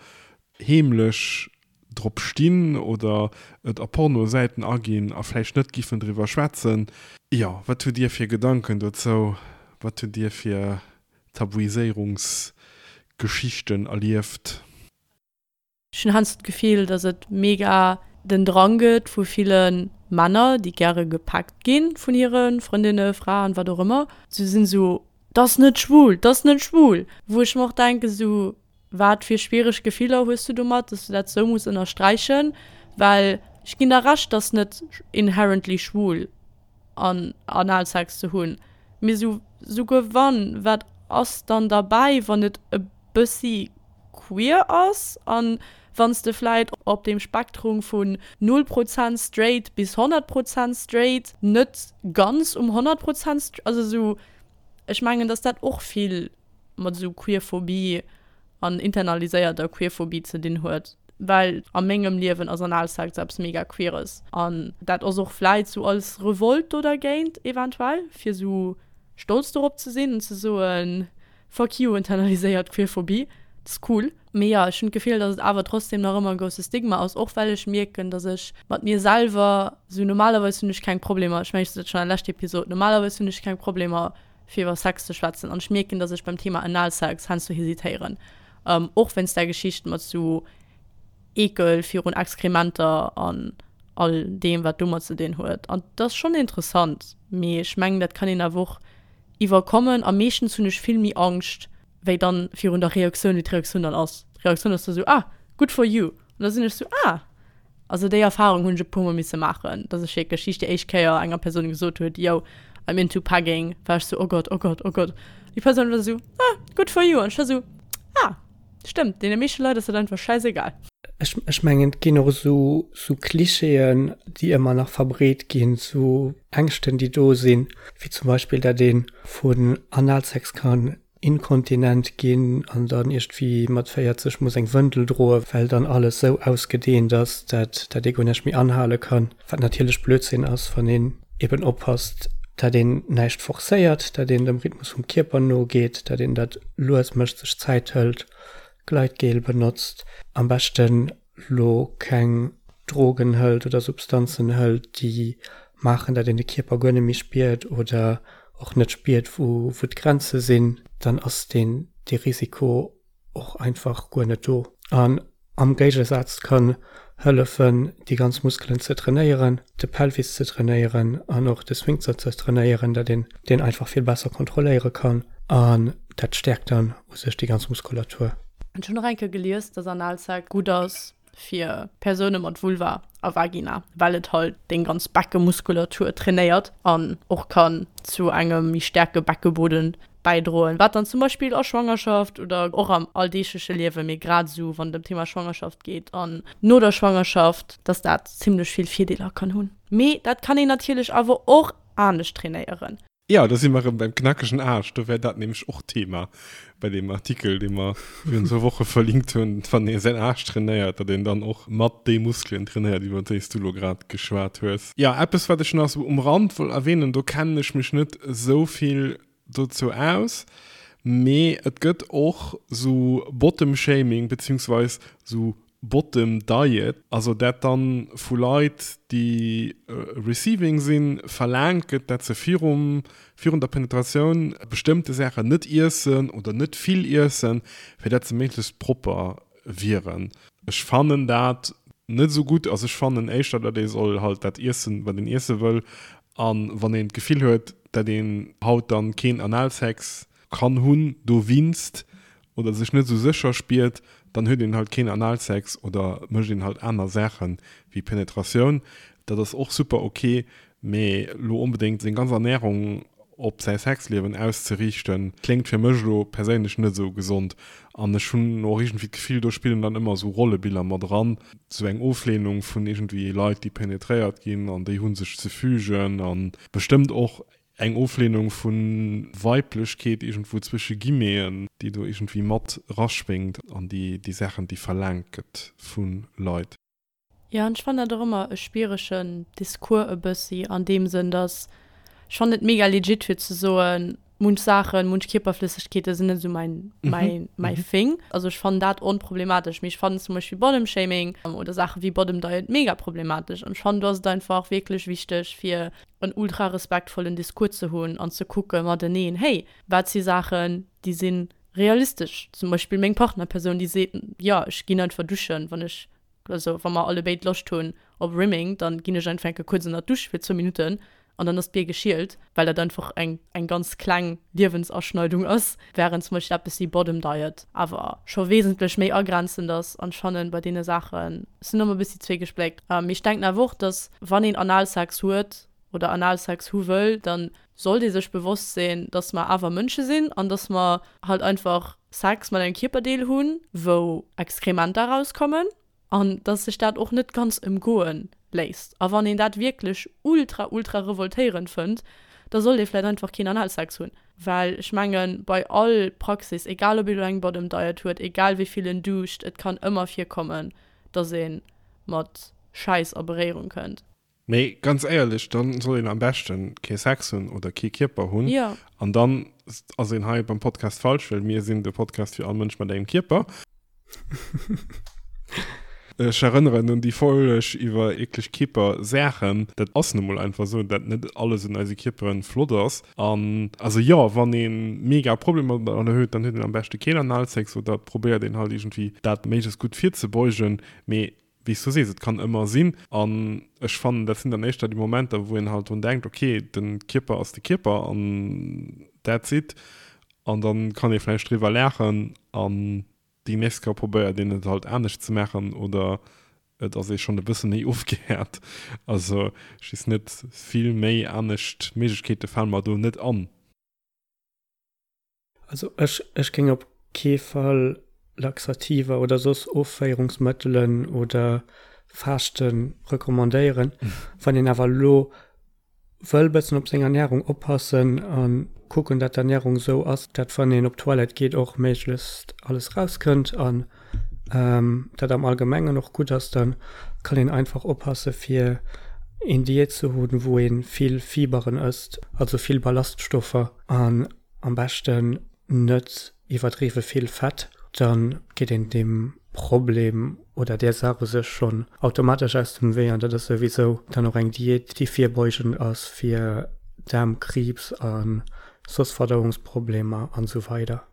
heemlech drop stinn oder et a Pornosäiten aginn a vläicht net giffen driwwer schwätzen. Jo, wat hutt Dir fir Gedanken dozou? Wat hutt Dir fir Tabuiséierungsgeschichten erlieft? Ech hunn heiansdo d'Gefill, datt et mega den Drang gëtt vu ville Männer, déi gäre gepackt gi vun hire Frëndinne, Fraen, wat och ëmmer. Se sinn esou, 't ass net schwul, 't ass net schwul! Wou ech mer och denken, esou, wat fir schwiereg Gefiller hues du domat, datt du dat esou muss ënnersträichen? Well ech ginn der Recht, 't ass net inherently schwul an Analsex ze hunn, mee esou, souguer wann, wat ass dann derbäi, wann et e bëssi queer ass an wann s de vläit op deem Spektrum vun 0 Prozent straight bis 100 Prozent straight net ganz um 100 Prozent, also esou, ech mengen dass dat och vill mat esou Queerphobie an internaliséierter Queerphobie ze dinn huet, well a mengem Liewen ass Analsex eppes mega Queeres an dat ass och vläit sou als Revolte do dergéint eventuell, fir sou stolz dorop ze sinn an ze soen, Fuck you, internaliséiert Queerphobie, dat ass cool. Mee jo, ech hunn d'Gefill, dass et awer trotzdem nach ëmmer e grousse Stigma ass, och well ech mierken, dass ech mat mir selwer sou, normalerweis hunn ech keng Problemer, ech mengen ech sot dat schonn an der leschter Episod, normalerweis hunn ech keng Problemer fir iwwer Sex ze schwätzen an ech mierken, dass ech beim Thema Analsex heiansdo hesitéieren, och wéinst där Geschicht mat sou Eekel virun Exkrementer an all deem wat domat ze dinn huet. An dat ass schonn interessant, mee ech mengen dat kann een awer och iwwerkommen a meeschtens hunn ech vill méi Angscht wéi dann virun der Reaktioun, wéi d'Reaktioun dann ass. D'Reaktioun ass da sou, ah, good for you. An da sinn ech sou, ah. Also déi Erfahrung hunn ech e puer mol misse maachen, dass ech wierklech wéi ech déi éischt Kéier enger Persoun gesot huet, yo, I'm into pegging, war ech sou, oh Gott, oh Gott, oh Gott. Déi Persoun war sou, ah, good for you. An ech war sou, ah. Stëmmt, deene meeschte Leit ass dat einfach schäisegal. Ech, ech mengen, et ginn och esou, esou Klischeeën, déi ëmmer nach verbreet ginn, esou Ängschten, déi do sinn, wéi zum Beispill, dat ee vun Analsex kann inkontinent ginn an dann iergendwéi mat 40 muss eng Wëndel droen, well dann alles esou ausgedeent ass, dat, dat ee guer näischt méi anhale kann. Wat natierlech Blödsinn ass, wann een eben oppasst, dat een näischt forcéiert, dat een dem Rhythmus vum Kierper nogeet, dat een dat lues mécht, sech Zäit hëlt, Gleitgel benotzt, am beschten lo keng Drogen hëlt oder Substanzen hëlt, déi maachen, dat een de Kierper guer net méi spiert oder och net spiert, wou d'Grenze sinn, dann ass deen dee Risiko och einfach guer net do. An. Am Géigesaz kann hëllefen déi ganz Muskelen ze trainéieren, de Pelvis ze trainéieren an och de Sphinkter ze trainéieren, dat een deen einfach vill besser kontrolléiere kann an dat stäerkt dann u sech déi ganz Muskulatur. Ech hunn och eng Kéier gelies, dass Analsex gutt ass fir Persoune mat Vulva a Vagina, well et halt deng ganz Beckemuskulatur trainéiert an och kann zu engem méi staarke Beckeboden bäidroen, wat dann zum Beispill a Schwangerschaft oder och am alldeegleche Liewen, mee grad esou wann et ëm d'Thema Schwangerschaft geet an no der Schwangerschaft, dass dat zimmlech vill Virdeeler kann hunn. Mee dat kann een natierlech awer och anescht trainéieren. Jo, do si mer erëm beim knackegen Aarsch. Do wär dat nämlech och Thema bei deem Artikel, dee mer virun zwou Woche verlinkt hunn, wann ee säin Aarsch trainéiert, datt een dann och mat déi Muskelen trainéiert, iwwer déi s du elo grad geschwat hues. Jo, eppes, wat ech nach esou um Rand wollt erwähnen, do kennen ech mech net esou vill dozou aus, mee et gëtt och esou Bottom-Shaming beziehungsweis esou Bottom Diet, also dat dann vu Leit déi receiving sinn, verlaangt gëtt, dat se virum virun der Penetratioun bestëmmte Saachen net iessen oder net vill iessen, fir dat se méiglechst propper wieren. Ech fannen dat net esou gutt, also ech fannen éischter, dat ee soll halt dat iessen, wat een iesse wëll, an wann een d'Gefill huet, dat een haut dann keen Analsex kann hunn dowinst oder sech net esou sécher spiert, dann huet een halt keen Analsex oder mécht een halt aner Saachen wéi Penetratioun. Dat ass och super ok, mee lo onbedéngt seng ganz Ernährung op säi Sexliewen auszeriichten, kléngt fir mech elo perséinlech net esou gesond. An ech hunn och iergendwéi d'Gefill, do spillen dann ëmmer esou Rollebiller mat eran, esou eng Oflehnung vun iergendwéi Leit, déi penetréiert ginn an déi hu sech ze fügen a bestëmmt och Eng Oflehnung vu Weiblechkeet iergendwou zwësche Guillemeten, déi do iergendwéi mat eraschwéngt an déi déi Saachen, déi verlaangt gëtt vu Leit. Jo, an ech fannen dat och ëmmer e schwieregen Discours e bëssi an deem Sënn, dass ech fannen et mega legit fir ze soen, munch Saachen, munch Kierperflëssegkeete sinn net esou mäin, mäin, mäi Thing. Also ech fannen dat onproblematesch, mee ech fannen zum Beispill Bottom Shaming oder Saache wéi Bottom Diet mega problematesch. An ech fannen do ass et einfach wierklech wichteg fir en ultra respektvollen Discours ze hunn an ze kucke mateneen, hey, wat si Saachen, déi si realistesch? Zum Beispill meng Partnerpersoun, déi seet, jo, ech ginn einfach duschen, wann ech, also wa mer allebéid Loscht hunn op Rimming, da ginn ech einfach eng Kéier kuerz ënner d'Dusch fir zwou Minutten an dann ass d'Bier geschielt, well dat einfach eng eng ganz kleng Liewensaschneidung ass, wärend zum Beispill eppes wéi Bottom Diet awer scho wesentlech méi agrenzend ass. An ech fannen, bei deene Saache sinn ëmmer e bëssi zweegespléckt. Mee ech denken awer och, dass wann een Analsex huet oder Analsex hu wëll, da sollt ee sech bewosst sinn, dass mer awer Mënsche sinn an dass mer halt einfach Sex mat engem Kierperdeel hunn, wou Exkrementer erauskommen an dass sech dat och net ganz ëmgoe léisst. A wann een dat wierklech ultra, ultra revoltéierend fënnt, da sollt ee vläicht einfach keen Analsex hunn. Well ech mengen, bei all Praxis, egal ob ee lo eng Bottom Diet huet, egal wéi vill en duscht, et kann ëmmer virkommen, dass ee mat Schäiss a Beréierung kënnt. Mee ganz éierlech, dann soll een am beschten kee Sex hunn oder kee Kierper hunn. Jo. An dann ass een hei beim Podcast falsch, well mir sinn de Podcast fir all Mënsch mat engem Kierper. Ech erënneren un déi Folg iwwer eekleg Kierpersaachen. Dat ass nu mol einfach esou, dat net alles un eise Kierperen flott ass. An also jo, wann ee mega Problemer domadder huet, dann huet een am beschte keen Analsex oder et probéiert een halt iergendwéi dat méiglechst gutt virzebeugen. Mee wéi s du sees, et kann ëmmer sinn. An ech fannen, dat sinn dann éischter déi Momenter, wou een halt drun denkt, okay, de Kierper ass de Kierper an that's it. An da kann ee vläicht driwwer laachen an déi nächst Kéier probéiert een et halt anescht ze maachen oder et ass ee schonn e bësse méi ofgehäert. Also ech weess net, vill méi anescht Méiglechkeete fale mer do net an. Also ech ech géing op kee Fall Laxativer oder soss Offéierungsmëttelen oder Faaschte recommandéieren. Wann een awer elo wëll bëssen op seng Ernärung oppassen a kucken, dat d'Ernärung esou ass, dat wann een op d'Toilette geet och méiglechst alles rauskënnt an dat am Allgemengen och gutt ass, da kann een einfach oppasse fir een Diät ze hunn, wou ee vill Fiberen ësst, also vill Ballaststoffer an Am beschten net iwwerdriwwe vill Fett, dann geet een deem Problem oder där Saach u sech schonn automatesch aus dem Wee an dat ass souwisou dann och eng Diät déi virbeugend ass fir Daarmkriibs a soss Verdauungsproblemer an esou weider.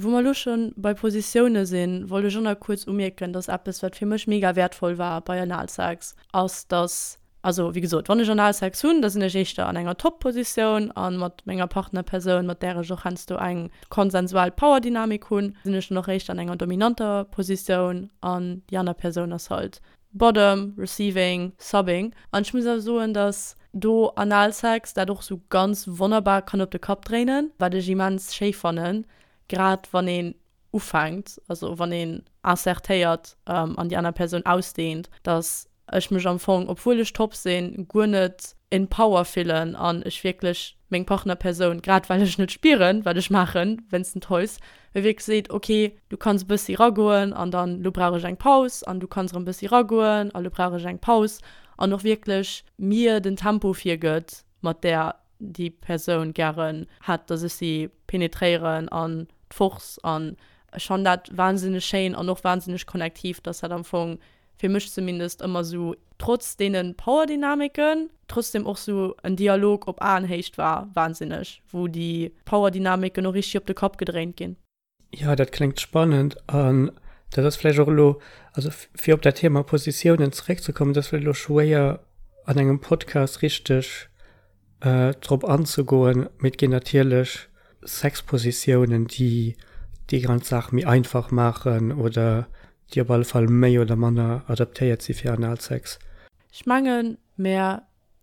Wou mer elo scho bei Positioune sinn, wollt ech och nach kuerz umierken, dass eppes, wat fir mech mega wäertvoll war bei Analsex, ass, dass, also wéi gesot, wann ech Analsex hunn, da sinn ech éischter an enger Top-Positioun a mat menger Partnerpersoun, mat där ech och heiansdo eng konsensual Powerdynamik hunn, sinn ech dann och éischter an enger dominanter Positioun an déi aner Persoun ass halt Bottom, Receiving, Subbing. An ech muss awer soen, dass do Analsex dat och sou ganz wonnerbar kann op de Kapp dréinen, wat ech immens schéi fannen, grad wann een ufänkt, also wann een insertéiert an déi aner Persoun ausdehnt, dass ech mech am Fong, obwuel ech top sinn, guer net in power fillen an ech wierklech meng Partnerpersoun, grad well ech net spieren, wat ech maachen wéinst den Toys, mir wierklech seet, ok, du kanns e bëssi ragoen an dann lo brauch ech eng Paus an du kanns erëm e bëssi ragoen a lo brauch ech eng Paus an och wierklech mir den Tempo virgëtt, mat där déi Persoun gären hätt, dass ech si penetréieren an d'Force an ech fannen dat wahnsinneg schéin an och wahnsinneg konnektiv, dass dat am Fong fir mech zumindest ëmmer sou, trotz deene Powerdynamiken, trotzdem och sou en Dialog op Aenhéicht war, wahnsinneg, wou déi Powerdynamiken och richteg op de Kapp gedréint ginn. Jo, dat kléngt spannend an dat ass vläicht och elo, also fir op dat Thema Positiounen zeréckzekommen, dat ass vläicht elo schwéier an engem Podcast richteg drop anzegoen, mee et ginn natierlech Sexpositiounen, déi déi ganz Saach méi einfach maachen oder déi op alle Fall méi oder manner adaptéiert si fir Analsex. Ech mengen, mär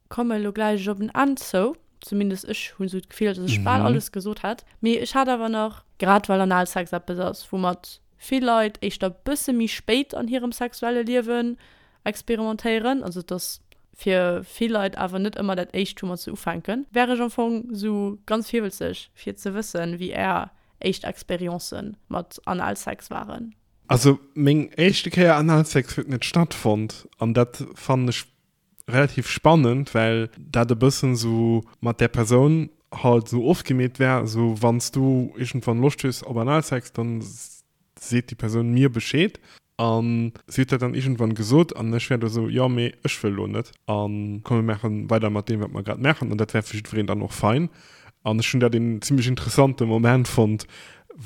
komme lo gläich op en Enn zou. Zumindest ech hunn esou d'Gefill, dass ech bal alles gesot hätt. Mee ech hat awer nach, grad well Analsex eppes ass, woumat vill Leit éischter bësse méi spéit an hirem sexuelle Liewen experimentéieren, also et ass fir vill Leit awer net ëmmer dat éischt woumat se ufänken, wär ech am Fong sou ganz virwëlzeg fir ze wëssen, wéi är éischt Experiencen mat Analsex waren. Also meng éischte Kéier Analsex huet net stattfonnt an dat fannen ech relativ spannend, well dat e bëssen sou mat där Persoun halt sou ofgemeet war, sou wann s du iergendwann Loscht hues op Analsex, dann seet déi Persoun mir Bescheed. An si huet dat dann iergendwann gesot an ech war do sou, jo mee ech wëll lo net a komm mir maache weider mat deem wat mer grad maachen an dat war fir jiddwereen dann och fein. An ech hunn dat een zimmlech interessante Moment fonnt,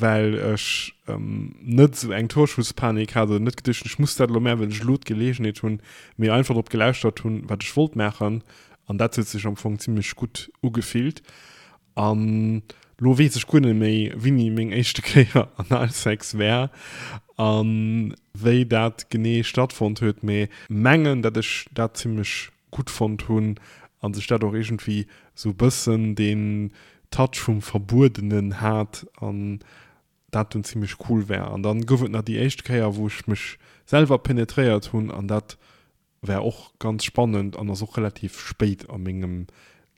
well ech net esou eng Torschusspanik hat oder net geduecht hunn, ech muss dat elo maachen, well ech elo d'Geleegenheet hunn, mee einfach drop gelauschtert hunn, wat ech wollt maachen an dat huet sech am Fong zimmlech gutt ugefillt. An lo weess ech guer net méi, wéini meng éischte Kéier Analsex war a wéi dat genee stattfonnt huet, mee mengen, dat ech dat zimmlech gutt fonnt hunn a sech dat och iergendwéi sou bëssen deen Touch vum Verbuedenen hat an dat dunn zimmlech cool war. An dann gouf et nach déi éischt Kéier, wou ech mech selwer penetréiert hunn an dat War och ganz spannend an ass och relativ spéit a mengem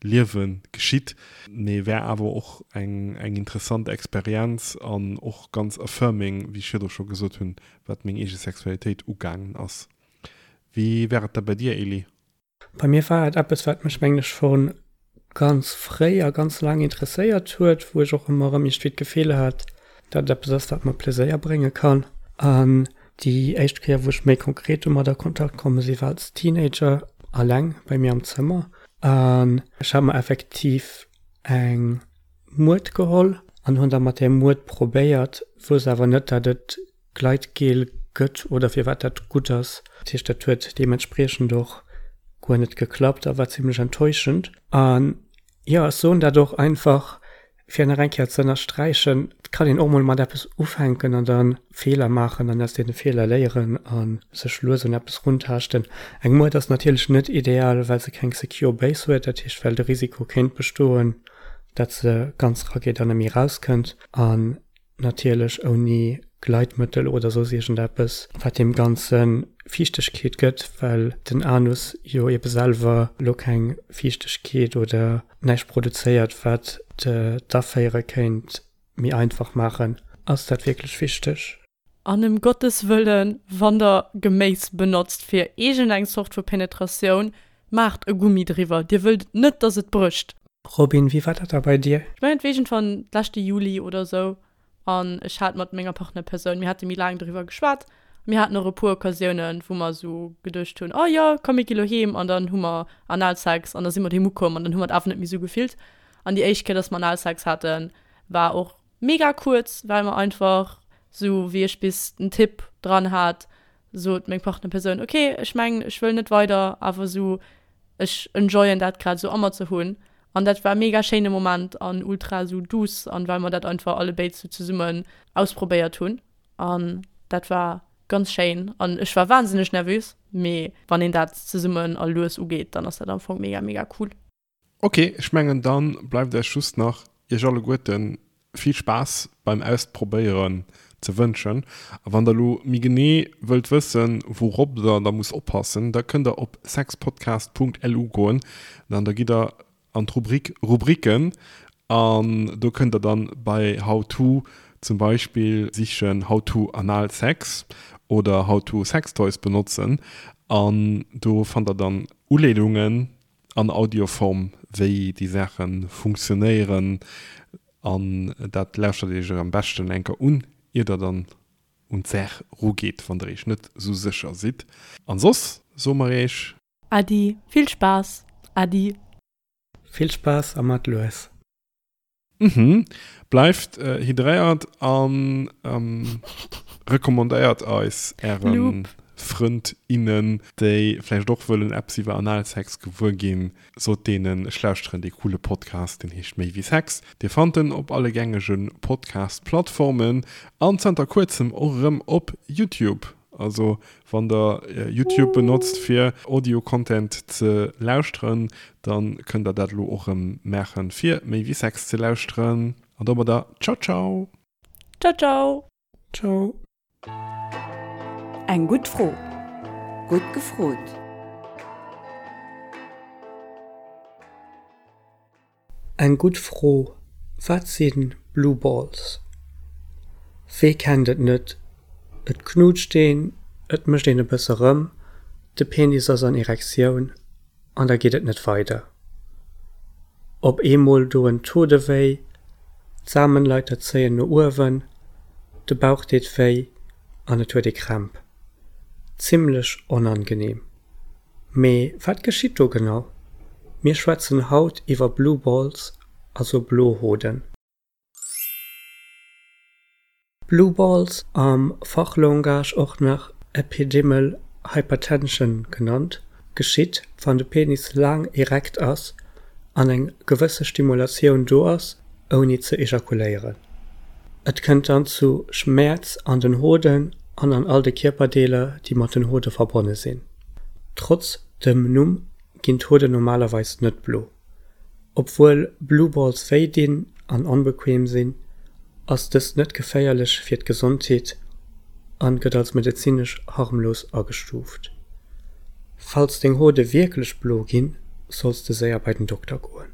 Liewe geschitt, mee war awer och eng eng interessant Experienz an och ganz affirming, wéi ech virdru scho gesot hunn, wat meng eege Sexualitéit ugaangen ass. Wéi war et da bei dir, Elie? Bei mir war et eppes, wat mech, mengen ech, scho ganz fréi a ganz laang interesséiert huet, wou ech och ëmmer erëm iergendwéi d'Gefill hat, datt et eppes ass, wat mer Pleséier brénge kann. An déi éischt Kéier, wou ech méi konkret domat a Kontakt komme si war als Teenager, alleng bei mir am Zëmmer. An ech hat mer effektiv eng Muert geholl an hunn da mat där Muert probéiert, wousst awer net, datt et Gleitgel gëtt oder firwat dat gutt ass. Dat heescht, dat huet deementspriechend och guer net geklappt a war zimlech enttäuschend. An jo, ech soen dat och einfach, fir nach eng Kéier ze ënnersträichen, Et kann een och mol mat eppes ufänken an da Feeler maachen an aus deene Feeler léieren a sech lues un eppes runtaaschten. Eng Muert ass natierlech net ideal, well se keng secure base huet, dat heescht, well de Risiko kéint bestoen, dat se ganz rageet an net méi erauskënnt. An Natierlech ouni Gleitmëttel oder soss iergendeppes, wat deem Ganze Fiichtegkeet gëtt, well den Anus jo ebe selwer lo keng Fiichtegkeet oder näischt produzéiert, wat d'Aféiere kéint méi einfach maachen. Ass dat wierklech wichteg? An ëm Gottes Wëllen, wann der Geméis benotzt fir iergendeng Zort vu Penetratioun, maacht e Gummi driwwer, dir wëllt net, dass et brécht. Robin, wéi war dat da bei dir? Ech mengen et war iergendwann leschte Juli oder sou an ech hat mat menger Partnerpersoun, mir hate méi laang doriwwer geschwat, mir haten och e puer Occasiounen, wou mer sou geduecht hunn, oh jo, komm mir gi lo heem an dann hu mer Analsex an da si mer doheem ukomm an dann hu mer et awer net méi sou gefillt. An déi éischt Kéier, dass mer Analsex haten, war och. mega kuerz, well mer einfach sou wéi ech bis den Tipp dran hat, sot meng Partnerpersoun, ok, ech mengen ech wëll net weider, awer sou ech enjoyen dat grad sou a mer ze hunn. An dat war e mega schéine Moment an ultra sou douce an well mer dat einfach allebéid sou zesummen ausprobéiert hunn an dat war ganz schéin an ech war wahnsinneg nervös, mee wann een dat zesummen a lues ugeet, dann ass dat am Fong mega mega cool. Ok, ech mengen dann bleift eis just nach iech alleguerten vill Spaass beim Ausprobéieren ze wënschen. A wann der elo méi genee wëllt wëssen wourop der da musst oppassen, da kënnt der op sexpodcast.lu goen an da gitt der an d'Rubrik Rubriken an do kënnt der dann bei How to zum Beispill sichen How to Analsex oder How to Sextoys benotzen an do fannt der dann Uleedungen an Audioform wéi déi Saache funktionéieren an dat lauschtert iech am beschten eng Kéier un ier der dann un d'Saach rugeet wann der iech net sou sécher sidd an soss soe mer iech. Äddi, vill Spaass, Äddi. Vill Spaass a mat lues. Mhm. Bleift hydréiert an recommandéiert eis äre Frënd, innen, déi vläicht och wëllen eppes iwwer Analsex gewuer ginn. Sot deenen, ech lauschteren dee coole Podcast, deen heescht Méi wéi Sex. Dir fannt en op alle gängege Podcast-Plattformen an zanter kuerzem och erëm op YouTube. Also wann der YouTube benotzt fir Audio Content ze lauschteren, dann kënnt der dat elo och rëm maachen fir méi wéi Sex ze lauschteren. An domadder ciao ciao. Ciao ciao. Ciao. Eng gutt Fro, gutt gefrot. Eng gutt Fro, Wat si Blue Balls? Wee kennt et net, et knutscht een, et mécht een e bësse rëm, de Penis ass an Erektioun an da geet et net weider. Op eemol doen d'Hode wéi, d'Samenleiter zéien no uewen, de Bauch deet wéi an et huet ee Krämp. Zimmlech onangenehm. Mee wat geschitt do genau? Mir schwätzen haut iwwer Blue Balls, also blo Hoden. Blue Balls, am Fachlangage och nach Epididymal Hypertension genannt, geschitt, wann de Penis laang erekt ass an eng gewësse Stimulatioun do ass, ouni ze ejakuléieren. Et kënnt dann zu Schmäerz an den Hoden an an all de Kierperdeeler, déi mat den Hode verbonne sinn. Trotz dem Numm ginn d'Hoden normalerweis net blo. Obwuel Blue Balls wéi dinn an onbequem sinn, ass dëst net geféierlech fir d'Gesondheet an gëtt als medezinesch harmlos agestuuft. Falls deng Hode wierklech blo ginn, solls de séier bei den Dokter goen.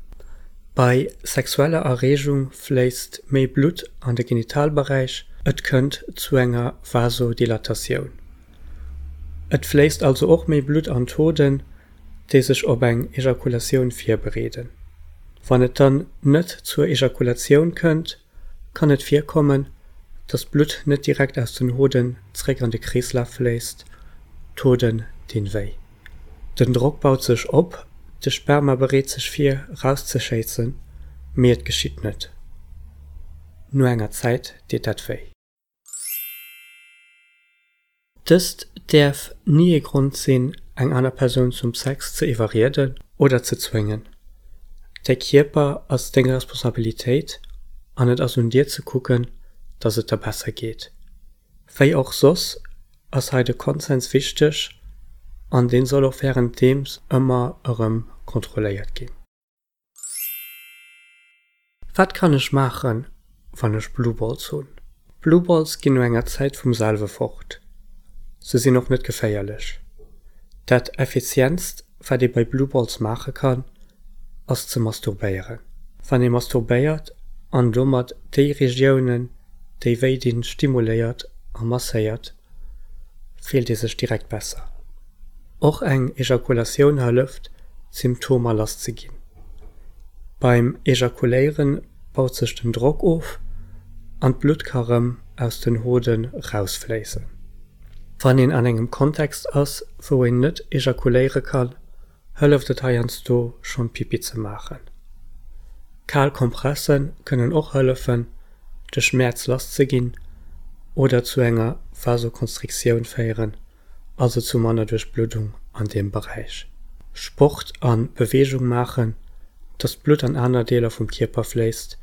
Bei sexueller Erreegung fléisst méi Blutt an de Genitalberäich, et kënnt zu enger Vasodilatatioun. Et fléisst also och méi Blutt an d'Hoden, déi sech op eng Ejakulatioun virbereeden. Wann et dann net zur Ejakulatioun kënnt, kann et virkommen, dass d'Blutt net direkt aus den Hoden zréck an de Kreeslaf fléisst, d'Hoden dinn wéi. Den Drock baut sech op, de Sperma bereet sech vir, rauszeschéissen, mee et geschitt net. No enger Zäit deet dat wéi. Dëst däerf ni ee Grond sinn, eng aner Persoun zum Sex ze iwwerrieden oder ze zwéngen. Däi Kierper ass deng Responsabilitéit an et ass un dir ze kucken, dass et der besser geet. Wéi och soss ass hei de Konsens wichteg an deen soll och währenddeems ëmmer erëm kontrolléiert ginn. Wat kann ech maachen, wann ech Blue Balls hunn? Blue Balls ginn no enger Zäit vum selwe fort. Se sinn och net geféierlech. Dat effizientst wat ee bei Blue Balls maache kann, ass ze masturbéieren. Wann ee masturbéiert an domat déi Regiounen déi wéi dinn stimuléiert a masséiert, fillt ee sech direkt besser. Och eng Ejakulatioun hëlleft, d'Symptomer lass ze ginn. Beim Ejakuléiere baut sech den Drock of an d'Blutt ka rëm aus den Hoden rausfléissen. Wann een an engem Kontext ass, wou een net ejakuléiere kann, hëlleft et heiansdo schonn Pipi ze maachen. Kal Kompresse kënnen och hëllefen. de Schmäerz lass ze ginn oder zu enger Vasokonstriktioun féieren, also zu manner Duerchbluddung an deem Beräich. Sport a Beweegung maachen, dass d'Blutt an aner Deeler vum Kierper fléisst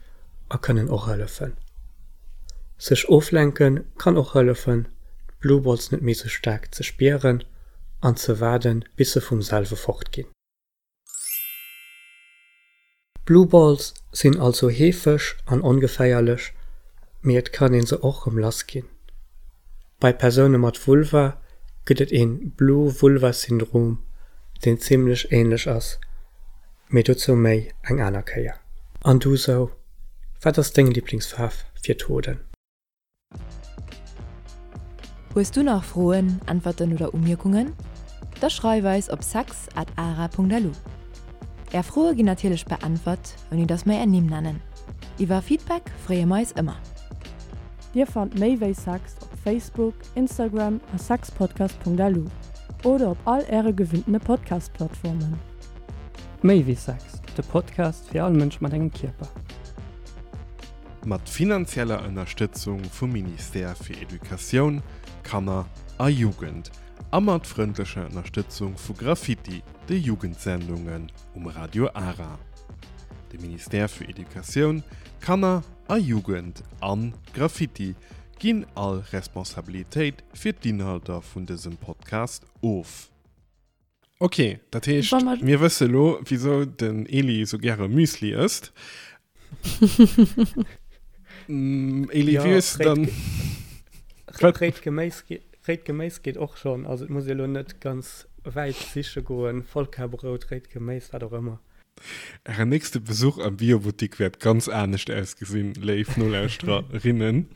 a kënnen och hëllefen. Sech oflenke kann och hëllefen, d'Blue Balls net méi sou staark ze spieren an ze waarden, bis se vum selwe fort ginn. Blue Balls sinn also heefeg an ongeféierlech, mee et kann een se och rëm lass ginn. Bei Persoune mat Vulva gëtt et een Blue Vulva Syndrom, deen zimlech ähnlech ass, mee dozou méi eng aner Kéier. An du sou, wat ass deng Liblingsfaarf fir d'Hoden? Hues du nach Froen, Äntwerten oder Umierkungen? Da schreif eis op sex at ara.lu. Är Froe ginn natierlech beäntwert, ouni dass mer är Nimm nennen. Iwwer Feedback freeë mer eis ëmmer. Dir fannt méi wéi Sex op Facebook, Instagram a sexpodcast.lu oder op all äre gewinntene Podcast-Plattformen. Méi wéi Sex, de Podcast fir all Mënsch mat engem Kierper. Mat finanzieller Ënnerstëtzung vum Ministère fir Educatioun, Kanner a Jugend a mat frëndlecher Ënnerstëtzung vu Graffiti, de Jugendsendungen um Radio Ara. De Ministère fir Educatioun, Kanner a Jugend an Graffiti ginn all Responsabilitéit fir d'Inhalter vun dësem Podcast of. Ok, dat heescht, mir wësse lo, wisou den Eli sou gäre Müsli ësst. Eli, wéi hues de dann. Réit Geméis, réit Geméis geet och schonn. Also et muss ee lo net ganz wäit siche goen. Vollkarbrout, réit Geméis, wat och ëmmer. Ären nächste Besuch am Biobuttik wäert ganz anescht ausgesinn, léif Nolauschtererinnen.